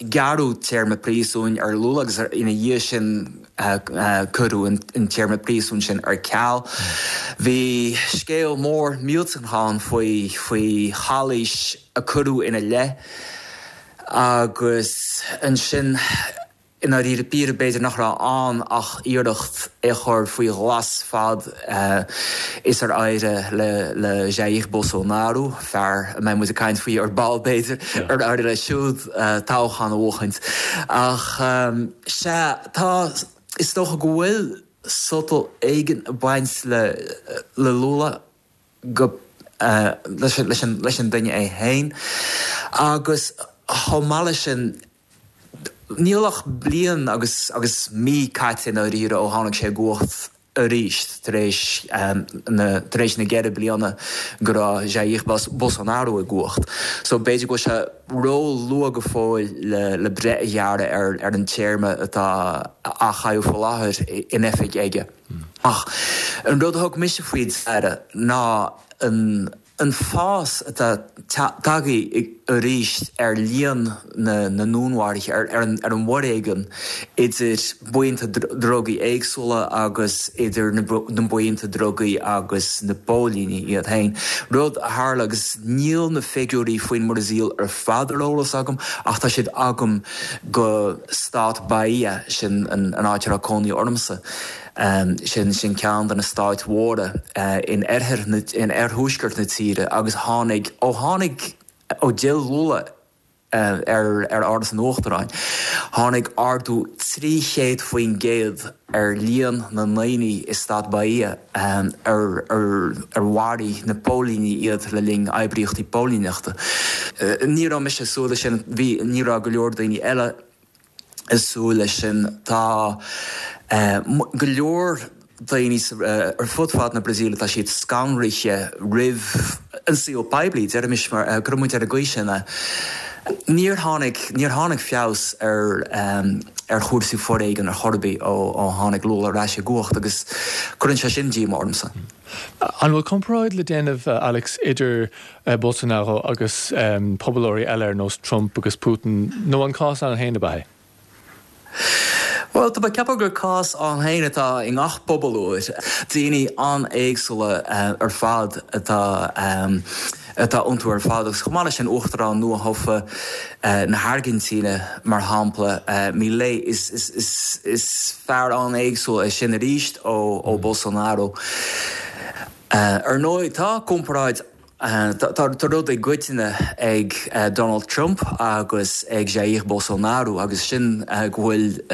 gearradh téarma príosúin ar Lula agus ina dhiaidh sin cuireadh an téarma príosúin sin ar ceal. Bhí scéal mór millteanach ann faoi faoi chalaois a cuireadh ina leith agus ansin, I ndáiríre píre, b'fhéidir nach raibh ann ach iarracht é a chur faoi ghlas fad is ar éirigh le Jair Bolsonaro, fear a mbeidh muid ag caint faoi ar ball b'fhéidir, ar éirigh leis siúd toghchán a bhuachaint. Ach sea, tá, is dócha go bhfuil sotal éigin ag baint le Lula. go leis an duine é féin agus chomh maith leis sin níl ach bliain agus agus mí caite i ndáiríre ó tháinig sé i gcumhacht arís tar éis na tar éis na gceithre bliana go raibh Jair Bolsonaro i gcumhacht. So b'fhéidir go bhfuil sé ró-luath go fóill le le breith a ghearradh ar ar an téarma atá á chaitheamh faoi láthair in oifig aige. Ach an rud a thug mise faoi deara ná an fás atá tagtha arís ar líon na ndúnmharuithe, ar an bhforéigean idir buíonta drugaí éagsúla agus idir na buíonta drugaí agus na póilíní iad féin. Rud a tharla, agus níl na figiúirí faoin mBrasaíl ar fad ar eolas agam, ach tá siad agam go stát Bahia, sin an áit a raibh cónaí ormsa. Sin sin ceann de na stáit mhóra in oirthear na, in oirthuaisceart na tíre agus tháinig, ó tháinig, ó d'fhill Lula ar ar Áras an Uachtaráin, tháinig ardú 300% ar líon na ndaoine i stát Bahia ar ar mharaigh na póilíní iad le linn oibríochtaí póilíneachta. Ní raibh mise ag súil leis sin, bhí, ní raibh go leor daoine eile ag súil leis sin. Tá go leor daoine ar fud fad na Brasaíle, tá siad scanraithe roimh an saol poiblí, deirimis, mar, cuirfidh muid ar an gcaoi sin é. Níor tháinig, níor tháinig feabhas ar ar chúrsaí foréigin ar chor ar bith ó ó tháinig Lula ar ais i gcumhacht agus cuireann sé sin díomá ormsa. An bhfuil comparáid le déanamh, Alex, idir Bolsonaro agus pobalóirí eile ar nós Trump agus Putin, nó an cás ann féin ab ea é? Bhuel, tá mé ag ceapadh gur cás ann féin atá i ngach pobalóir. Daoine an-éagsúla ar fad atá atá iontu ar fad agus chomh maith leis sin Uachtarán nua-thofa na hAirgintíne, mar shampla, Milei, is is is fear an-éagsúil é sin arís ó ó Bolsonaro. Ar ndóigh, tá comparáid Tá rud i gcoitinne ag Donald Trump agus ag Jair Bolsonaro agus sin go bhfuil,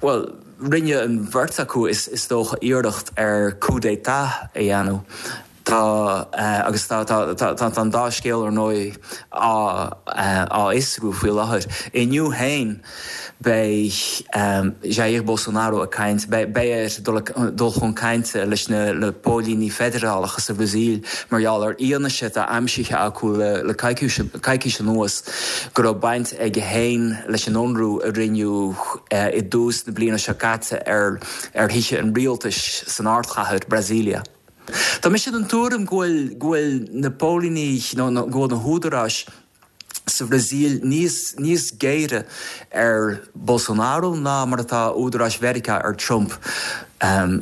bhuel, rinne an bheirt acu is dócha iarracht ar coup d'état a dhéanamh. Tá, agus tá, tá an dá scéal ar ndóigh á fhiosrú faoi láthair. Inniu féin, Beidh Jair Bolsonaro ag caint, beidh air dul chun cainte leis na póilíní feidearálacha sa Bhrasaíl mar gheall ar fhianaise atá aimsithe acu le coicís anuas go raibh baint aige féin leis an ionradh a rinneadh i dtús na bliana seo caite ar thithe an rialtais san ardchathair, Brasília. Tá mise den tuairim go bhfuil na póilíní nó go bhfuil na húdaráis. sa Bhrasaíl níos níos géire ar Bolsonaro ná mar atá údaráis Mheiriceá ar Trump.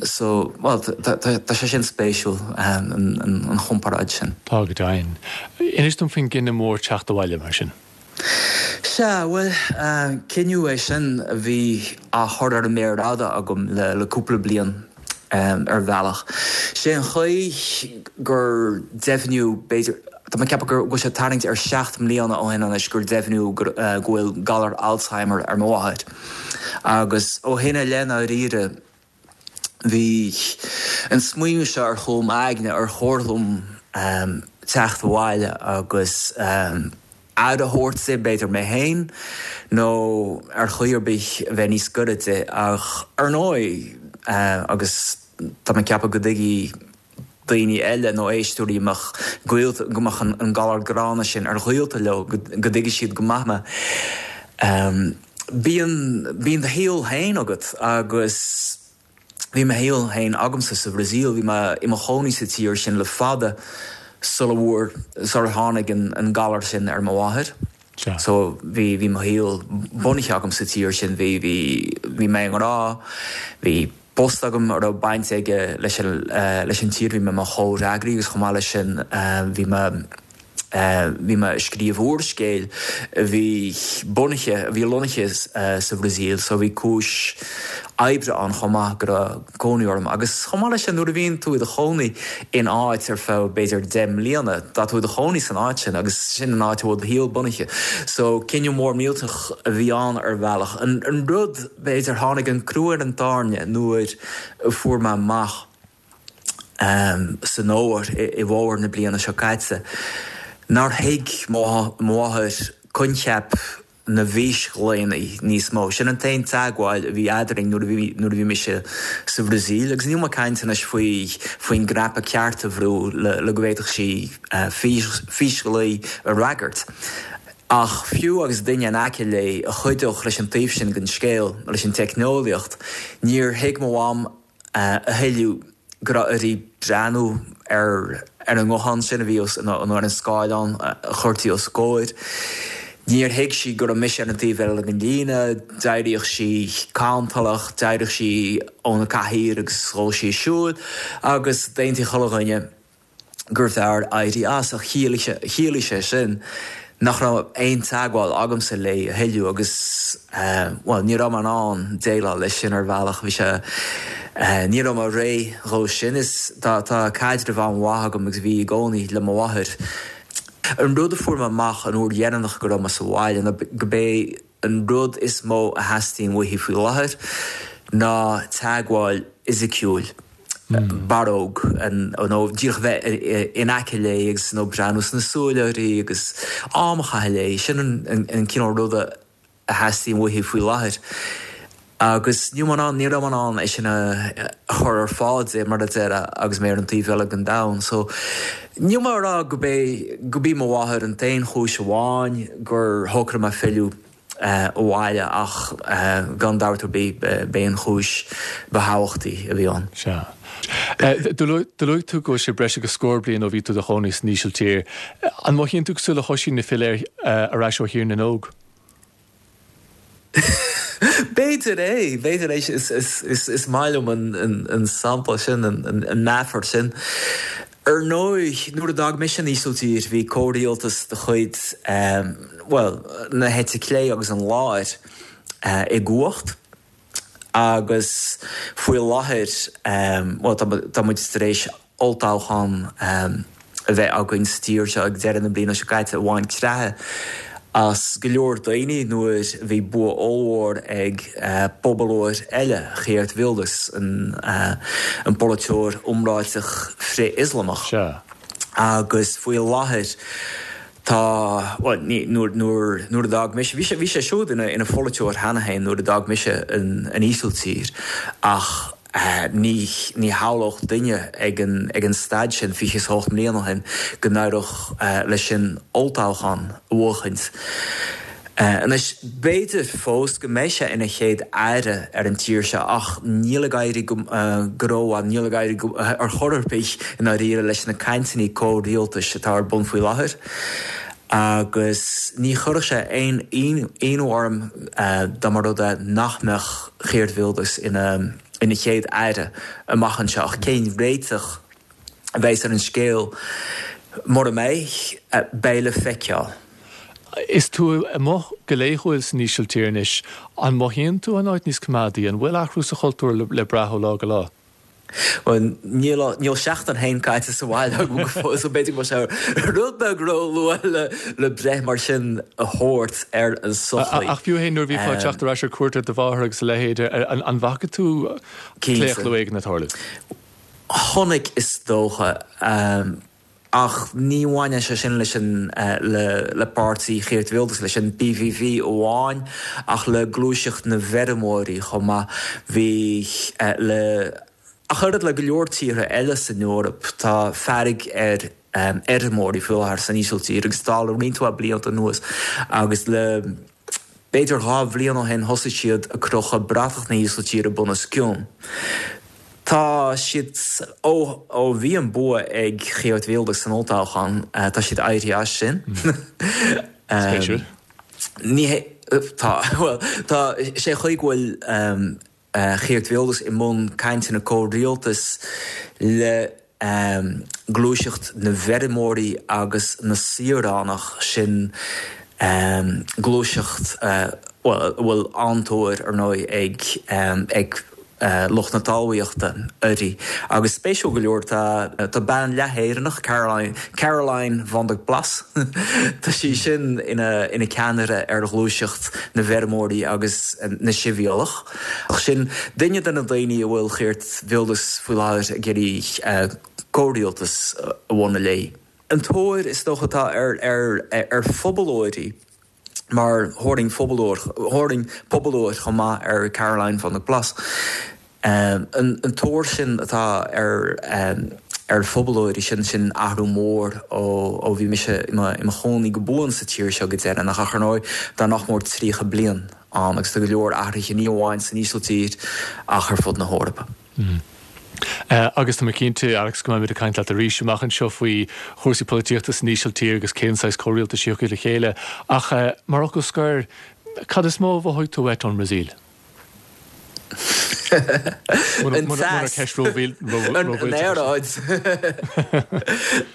So, bhuel, tá sé sin spéisiúil, an chomparáid sin. Tá go deimhin. Inis dom faoin gcinneadh mór teacht abhaile, mar sin. Sea, bhuel, cinneadh é sin a bhí á chur ar an méar fhada agam le cúpla bliain, ar bhealach. Sé an chaoi gur deimhníodh, b'fhéidir, tá mé ag ceapadh go bhfuil sé ag tarraingt ar sheacht mbliana ó shin anois gur deimhníodh go bhfuil galar Alzheimer ar mo mháthair. Agus ó shin i leith, i ndáiríre, bhí an smaoineamh seo ar chúl m'aigne, ar chóir dom teacht abhaile agus aire a thabhairt di, b'fhéidir mé féin, nó ar chaoi ar bith a bheith níos gaire di. Ach ar ndóigh, agus tá mé ag ceapadh go dtuigfidh daoine eile nó éisteoirí a mbeadh gaolta, go mbeadh an galar gránna sin ar ghaolta leo, go dtuigfidh siad go maith mé. Bíonn, bíonn do shaol féin agat agus bhí mo shaol féin agamsa sa Bhrasaíl, bhí mé i mo chónaí sa tír sin le fada sula bhfuair, sular tháinig an galar sin ar mo mháthair. So bhí, bhí mo shaol bunaithe agam sa tír sin, bhí, bhí, bhí mé i ngrá, bhí post agam a raibh baint aige leis an, leis an tír, bhí mé i mo chomhfhreagraí agus chomh maith leis sin bhí mé, bhí mé ag scríobh úrscéil a bhí bunaithe, a bhí lonnaithe sa Bhrasaíl so bhí cúis oibre ann chomh maith go raibh cónaí orm. Agus chomh maith leis sin nuair a bhíonn tú i do chónaí in áit ar feadh b'fhéidir 10 mbliana, tá tú i do chónaí san áit sin agus sin an áit a bhfuil do shaol bunaithe. So cinneadh mór millteach a bhí ann ar bhealach. An rud, b'fhéidir, tháinig an crú ar an tairne nuair a fuair mé amach san fhómhar, i bhfómhar na bliana seo caite, nár thuig mo mháthair coincheap na bhfísghlaonna níos mó. Sin an t-aon teagmháil a bhí eadrainn nuair a bhí nuair a bhí mise sa Bhrasaíl. Agus níl mé ag caint anois faoi faoin gcnaipe ceart a bhrú le le go bhféadfadh sí físghlao a fhreagairt. Ach fiú agus duine in aice léi a chuideodh leis an taobh sin den scéal, leis an teicneolaíocht, níor thuig mo mham a thuilleadh go raibh uirthi breathnú ar an nguthán sin a bhí os, nó ar an scáileán a chuirtí os a comhair. Níor thuig sí go raibh mise ar an taobh eile den líne, d'éiríodh sí cantalach, d'éiríodh sí óna cathaoir agus ghabhadh sí ag siúl agus d'aontaigh chuile dhuine gurbh fhearr éirí as, ach chiallaigh sé sin nach raibh aon teagmháil agamsa léi a thuilleadh agus, bhuel, ní raibh mé in ann déileáil leis sin ar bhealach, bhí sé, ní raibh mé réidh dhó sin. Is tá, tá caidreamh an-mhaith agam agus bhí i gcónaí le mo mháthair. An rud a fuair mé amach an uair dheireanach go raibh mé sa bhaile ná go b'é An rud is mó a theastaíonn uaithi faoi láthair ná teagmháil fhisiciúil, barróg, nó díreach bheith in aice léi agus nó breathnú sna súile uirthi agus am a chaitheamh léi. Sin an cineál ruda a theastaíonn uaithi faoi láthair. Agus ní raibh mé in ann, ní raibh mé in ann é sin a chur ar fáil di, mar a déarfá, agus mé ar an taobh eile den domhan. So, níl mé ag rá go b'é, go b'í mo mháthair an t-aon chúis amháin gur shocraigh mé filleadh abhaile ach gan dabht ar bith b'é an chúis ba thábhachtaí a bhí ann. Sea. Do luaigh tú go bhfuil sé breis agus scór bliain ó bhí tú i do chónaí san Ísiltír. An mothaíonn tú cosúil le hOisín ag filleadh ar ais ó Thír na nÓg? B'fhéidir é, b'fhéidir é. Is maith liom an sampla sin, an meafar sin. Ar ndóigh, nuair a d'fhág mise an Ísiltír, bhí comhrialtas de chuid, bhuel, na heite clé agus an láir i gcumhacht agus faoi láthair, bhuel, tá muid tar éis olltoghchán a bheith againn sa tír seo ag deireadh na bliana seo caite a bhain creathadh as go leor daoine nuair a bhí bua ollmhór ag pobalóir eile, Geert Wilders, an polaiteoir iomráiteach frith-Ioslamach. Agus faoi láthair tá, bhuel, ní, nuair, nuair, nuair a d'fhág mise, bhí sé, bhí sé siúd ina, ina pholaiteoir cheana féin nuair a d'fhág mise an, an Ísiltír ach, Ní shamhlódh duine ag an staid sin, 28 mbliana ó shin, go n-éireodh leis sin olltoghchán a bhuachaint. Anois, b'fhéidir fós go mbeidh sé ina chéad aire ar an tír seo ach níl ag éirí go rómhaith, níl ag éirí ar chor ar bith i ndáiríre leis na cainteanna comhrialtais atá ar bun faoi láthair. Agus ní chuirfeadh sé aon ionadh orm dá mba rud é nach mbeadh Geert Wilders ina chéad aire amach anseo. Ach cén réiteach a bheas ar an scéal mura mbeidh, beidh le feiceáil. Is tú amuigh go laethúil san Ísiltír anois. An mothaíonn tú an áit níos coimeádaí? An bhfuil athrú sa chultúr le brath ó lá go lá? Bhuel, níl, níl seachtain féin caite sa bhaile agam go fóill, so b'fhéidir go bhfuil sé rud beag ró-luath le, le breith mar sin a thabhairt ar an sochaí. Ach fiú féin nuair a bhífeá ag teacht ar ais ar cuairt ar do mháthair agus a leithéid, an, an bhfaca tú claochlú éigin ag tarlú? Chonaic, is dócha. Ach ní bhaineann sé sin leis an le páirtí Geert Wilders, leis an PVV amháin, ach le gluaiseacht na bhfeirmeoirí chomh maith. Bhí le ach oiread le go leor tíortha eile san Eoraip, tá fearg ar fheirmeoirí faoi láthair san Ísiltír agus tá le roinnt mhaith blianta anuas agus le B'fhéidir 2 bhliain ó shin thosaigh siad ag crochadh bratach na hÍsiltíre bunoscionn. Tá siad, ó ó bhí an bua ag Geert Wilders san olltoghchán, tá siad éirithe as sin. Spéisiúil. Ní hé, tá, bhuel, tá sé chaoi go bhfuil Geert Wilders i mbun cainteanna comhrialtais le gluaiseacht na bhfeirmeoirí agus na saoránach, sin gluaiseacht a bhfuil an-tóir, ar ndóigh, ag lucht na talmhaíochta uirthi. Agus spéisiúil go leor, tá bean leath-Éireannach, Caroline, Caroline van der Plas, tá sí sin ina ceannaire ar ghluaiseacht na bhfeirmeoirí agus na sibhialtach. Ach sin duine de na daoine a bhfuil Geert Wilders faoi láthair ag iarraidh comhrialtas a bhunú léi. An tóir is dócha atá ar phobalóirí, mar thabharfainn phobalóir, thabharfainn pobalóir chomh maith ar Caroline van der Plas, an tóir sin atá ar ar phobalóirí, sin sin athrú mór ó bhí mise i mo chónaí go buan sa tír seo go deireanach. Ach ar ndóigh tá nach mór 30 bliain ann agus tá go leor athruithe ní amháin san Ísiltír ach ar fud na hEorpa. Agus tá mé cinnte, Alex, go mbeimid ag caint leat arís amach anseo faoi chúrsaí polaitíochta san Ísiltír agus cén saghas comhrialtais a thiocfaidh le chéile. Ach mar fhocal scoir, cad is mó a mhothaigh tú uait ón mBrasaíl? An teas. An aeráid.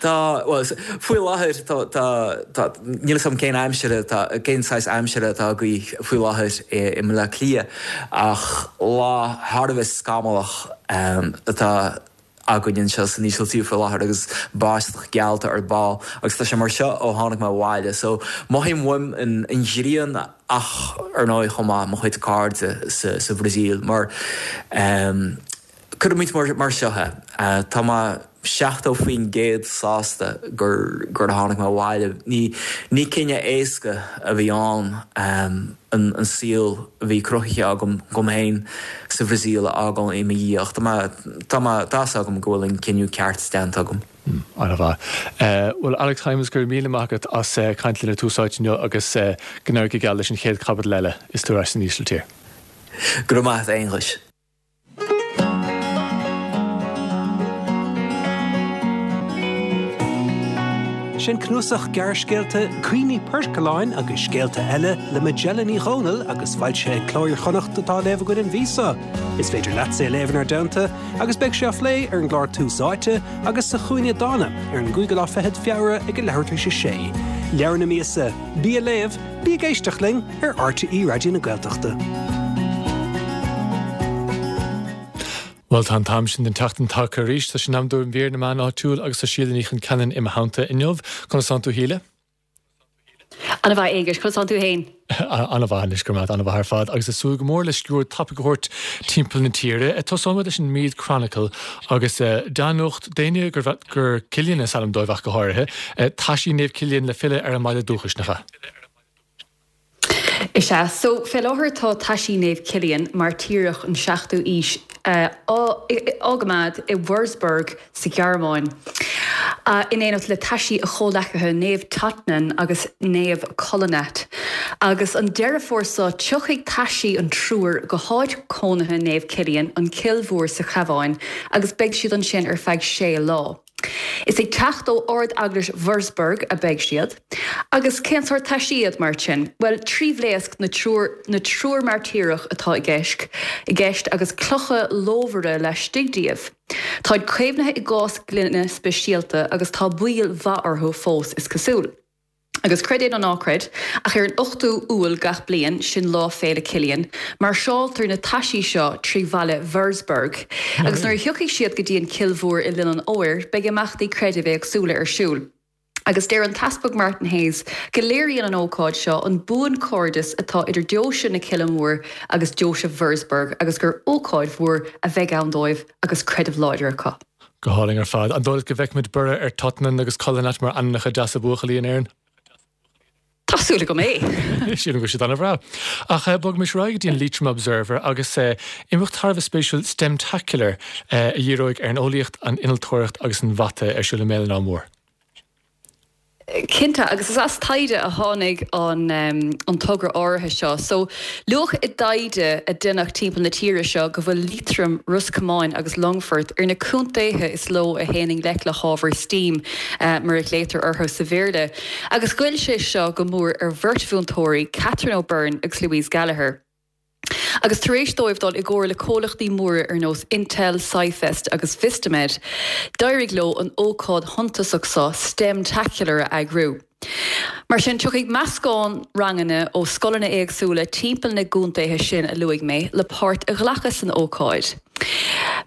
Tá, bhuel, faoi láthair tá, tá, tá, níl 'fhios agam cén aimsir atá, cén saghas aimsire atá agaibh faoi láthair i mBleá Cliath ach lá thar a bheith scamallach atá againn anseo san Ísiltír faoi láthair agus báisteach geallta ar ball agus tá sé mar seo ó tháinig mé abhaile so mothaím uaim an ghrian ach ar ndóigh chomh maith mo chuid cairde sa Bhrasaíl mar cuirfidh muid mar seo é tá mé 70% sásta gur gur tháinig mé abhaile ní ní cinneadh éasca a bhí ann an saol a bhí cruthaithe agam dom féin sa Bhrasaíl a fhágáil i mo dhiaidh ach tá mé, tá mé, tá 'fhios agam go bhfuil an cinneadh ceart déanta agam. An-mhaith. Bhuel, Alex Hijmans, go raibh míle maith agat as caint linn ar Tús Áite inniu agus go n-éirí go geal leis an chéad chaibidil eile is tú ar ais san Ísiltír. Go raibh maith agat, a Aonghuis. Sin cnuasach gearrscéalta Cuimhní Poircealláin agus Scéalta Eile le Majella Ní Dhomhnaill agus foilsithe ag Cló Iar-Chonnacht atá á léamh againn an mhí seo. Is féidir leatsa é a léamh inár dteannta agus beidh sé á phlé ar an gclár Tús Áite agus sa Chúinne Dána ar an gcúigiú lá fichead Feabhra ag a leathuair tar éis a sé. Leabhar na míosa, Bí ag Léamh, Bí ag Éisteacht linn ar RTÉ Raidió na Gaeltachta. Bhuel, tá an t-am sin den tseachtain tagtha arís. Tá sé in am do mhír na meán áitiúil agus tá Síle Ní Chonceanainn i mo theannta inniu. Conas tánn tú, a Shíle? Ana mhaith, Aonghus. Conas tánn tú fhéin? Ana mhaith anois, go raibh maith agat, ana mhaith ar fad. Agus ag súil go mór le sciuird tapaidh a thabhairt timpeall na tíre. Tosóidh muid leis an Meath Chronicle agus dea-nuacht d'éinne gur Cillian is ainm dóibh ach go háirithe. Taisí Naomh Cillian le filleadh ar an mbaile dúchais, nach ea? Is ea. So, fé láthair tá taisí Naomh Cillian, mairtíreach an 7ú aois, á gcoimeád i Wurzburg sa Ghearmáin, in éineacht le taisí a chomhleacaithe Naomh Totnan agus Naomh Kolonat. Agus an Deireadh Fómhair seo, tiocfaidh taisí an triúir go háit cónaithe Naomh Cillian, an Cill Mhór sa Chabhán, agus beidh siad ansin ar feadh sé lá. Is ag teacht ó Ard-Eaglais Wurzburg a beidh siad. Agus cén sórt taisí iad, mar sin? Bhuel, tribhléasc na triúr na triúr mairtíreach atá i gceist i gceist agus clocha lómhara laistigh díobh. Táid caomhnaithe i gcás gloine speisialta agus tá bail mhaith orthu fós, is cosúil. Agus creid é nó ná creid, ach ar an 8ú Iúil gach bliain, sin Lá Féile Cillian, máirseáltar na taisí seo trí bhaile Wurzburg. Agus nuair a thiocfaidh siad go dtí an Cill Mhór i linn an fhómhair, beidh imeachtaí creidimh éagsúla ar siúl. Agus deir an tEaspag Martin Hayes go léiríonn an ócáid seo an buanchairdeas atá idir Deoise na Cille Móire agus Deoise Wurzburg agus gur ócáid mhór a bheidh ann dóibh agus creideamh láidir acu. Go hálainn ar fad. An dóigh leat go bhfeicfimid borradh ar Totnan agus Cullinat mar ainmneacha deasa buachaillí in Éirinn? Tá súil agam é! Sílim go bhfuil siad an-bhreá. Ach bogaimis ar aghaidh go dtí an Leitrim Observer agus imeacht thar a bheith spéisiúil STEMtacular a dhíreoidh ar an eolaíocht, an innealtóireacht agus an mhata ar siúl i mBéal an Átha Mór. Cinnte, agus is as taighde a tháinig an togra áirithe seo. So, luadh i dtaighde a deineadh timpeall na tíre seo go bhfuil Liatroim, Ros Comáin agus Longfort ar na contaetha is ló a théann i ngleic le hábhair steam, mar a ghlaotar orthu sa Bhéarla. Agus ghoill sé seo go mór ar bheirt mhúinteoirí, Catherine O'Byrne agus Louise Gallagher. Agus tar éis dóibh dul i gcomhar le comhlachtaí móra ar nós Intel, SciFest agus Vistamed, d'éirigh leo an ócáid shuntasach seo, STEMtacular, a eagrú. Mar sin, tiocfaidh meascán ranganna ó scoileanna éagsúla timpeall na gcontaetha sin a luaigh mé le páirt a ghlacadh san ócáid.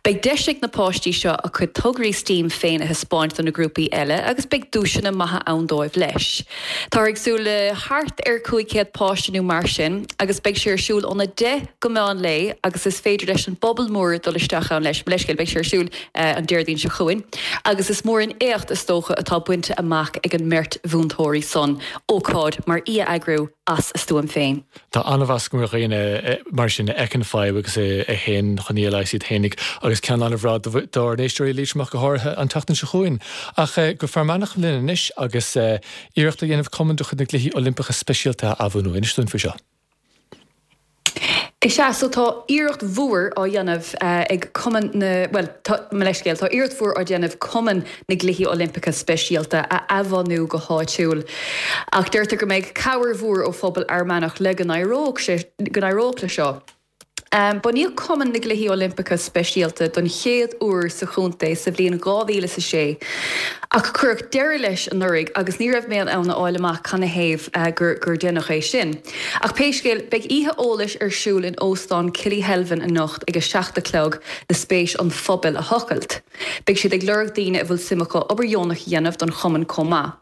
Beidh deis ag na páistí seo a cuid tograí steam féin a thaispeáint do na grúpaí eile agus beidh duaiseanna maithe ann dóibh leis. Táthar ag súil le thart ar 500 páiste nó mar sin agus beidh sé ar siúl óna 10 go meán lae agus is féidir leis an bpobal mór dul isteach ann leis. Mo leithscéal, beidh sé ar siúl an Déardaoin seo chugainn agus is mór an éacht is dócha atá bainte amach ag an mbeirt mhúinteoirí san, ócáid mar í a eagrú as a stuaim féin. Tá an-mheas agam ar dhaoine mar sin a fheiceann fadhb agus a théann chun í a leigheas iad fhéinig agus ceann an-bhreá dár n-éisteoirí Liatroma go háirithe an tseachtain seo chugainn. Ach go Fear Manach linn anois agus iarracht á dhéanamh cumann de chuid na gCluichí Oilimpeacha Speisialta a athbhunú. Inis dúinn faoi seo. Is ea, so tá iarracht mhór á dhéanamh ag Cumann na, bhuel, tá, mo leithscéal, tá iarracht mhór á déanamh Cumann na gCluichí Oilimpeacha Speisialta a athbhunú go háitiúil. Ach deirtear go mbeidh cabhair mhór ó phobal Fhear Manach le go n-éireodh sé, go n-éireodh le seo. Bunaíodh Cumann na gCluichí Oilimpeacha Speisialta don chéad uair sa chontae sa bhliain 2006 ach cuireadh deireadh leis anuraidh agus ní raibh mé in ann a fháil amach canathaobh gur gur deineadh é sin. Ach pé scéal, beidh oíche eolais ar siúl in Óstán Killyhelvin anocht ag 7 a chlog le spéis an phobail a thochailt. Beidh siad ag lorg daoine a bhfuil suim acu obair dheonach a dhéanamh don chumann chomh maith.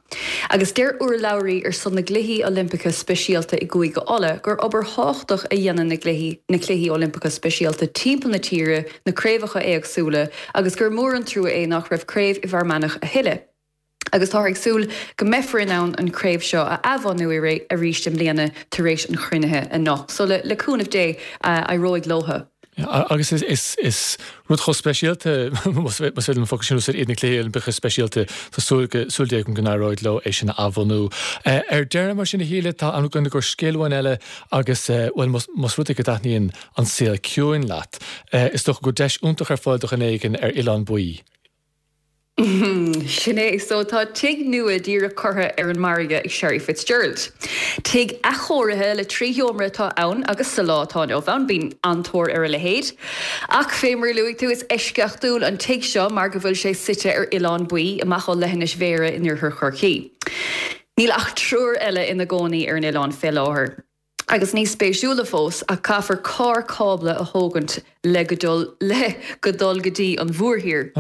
Agus deir urlabhraí ar son na gCluichí Oilimpeacha Speisialta i gCúige Uladh gur obair thábhachtach a dhéanann na gcluichí na Cluichí Oilimpeacha Speisialta timpeall na tíre, na craobhacha éagsúla, agus gur mór an trua é nach raibh craobh i bhFear Manach a thuilleadh. Agus táthar ag súil go mbeifear in ann an chraobh seo a athbhunú arís i mbliana tar éis an chruinnithe anocht. So le cúnamh Dé, éireoidh leothu. Agus is rud chomh speisialta, más féidir liom an focal sin a úsáid, iad na Cluichí Oilimpeacha Speisialta, tá súil súil Dé agam go n-éireoidh leo é sin a athbhunú. Ar deireadh, mar sin, a Shíle, tá am againn i gcomhair scéal amháin eile agus, bhuel, más rud é go dtaitníonn an saol ciúin leat, is dócha go bhfuil deis iontach ar fáil do dhuine éigin ar Oileán Baoi. Sin é. So tá tigh nua díreach curtha ar an margadh ag Sherry Fitzgerald. Tigh athchóirithe le 3 sheomra atá ann agus sa lá atá inniu ann bíonn an-tóir ar a leithéid. Ach fé mar a luaigh tú, is eisceachtúil an tigh seo mar go bhfuil sé suite ar Oileán Baoi, amach ó leithinis Bhéarra in oirthear Chorcaí. Níl ach triúr eile ina gcónaí ar an oileán fé láthair. Agus níos spéisiúla fós, ach caithfear carr cábla a thógaint le go dul le go dul go dtí an mhórthír.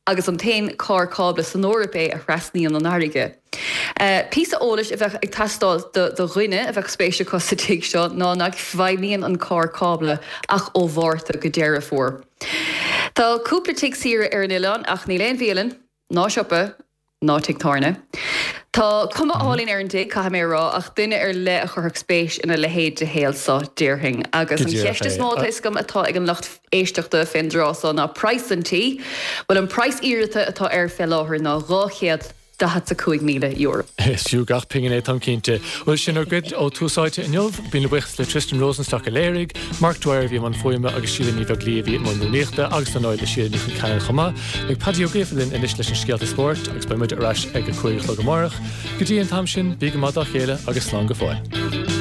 Agus an t-aon carr cábla san Eoraip é a thrasnaíonn an fharraige. Píosa eolais a bheadh ag teastáil do do dhuine a bheadh spéis acu sa tigh seo ná nach bhfeidhmíonn an carr cábla ach ó Mhárta go Deireadh Fómhair. Tá cúpla tigh saoire ar an oileán ach níl aon bhialann, ná siopa, ná tigh tábhairne. Tá cuma álainn ar an dtigh, caithfidh mé a rá, ach duine ar leith a chuirfeadh spéis ina leithéid de shaol so, déarfainn. Agus Go an díreach cheist is é. mó atá fhios agam atá ag an lucht éisteachta fén dtráth so ná praghas an tí. Bhuel, an praghas iarrata atá air fé láthair ná $200,000. €45,000. Is fiú gach pingin é, táim cinnte. Bhuel, sin ár gcuid ó Tús Áite inniu. Míle buíochas le Tristan Rosenstock a léirigh, Mark Dwyer a bhí i mbun fuaime agus Síle Ní Bheaglaoí a bhí i mbun rúnaíochta agus ar ndóigh le Síle Ní Chonceanainn chomh maith. Beidh Paddy Ó Gríofa linn anois leis an scéalta spóirt agus beidh muid ar ais ag a 5 a chlog amárach. Go dtí an t-am sin, bí go maith dá chéile agus slán go fóill.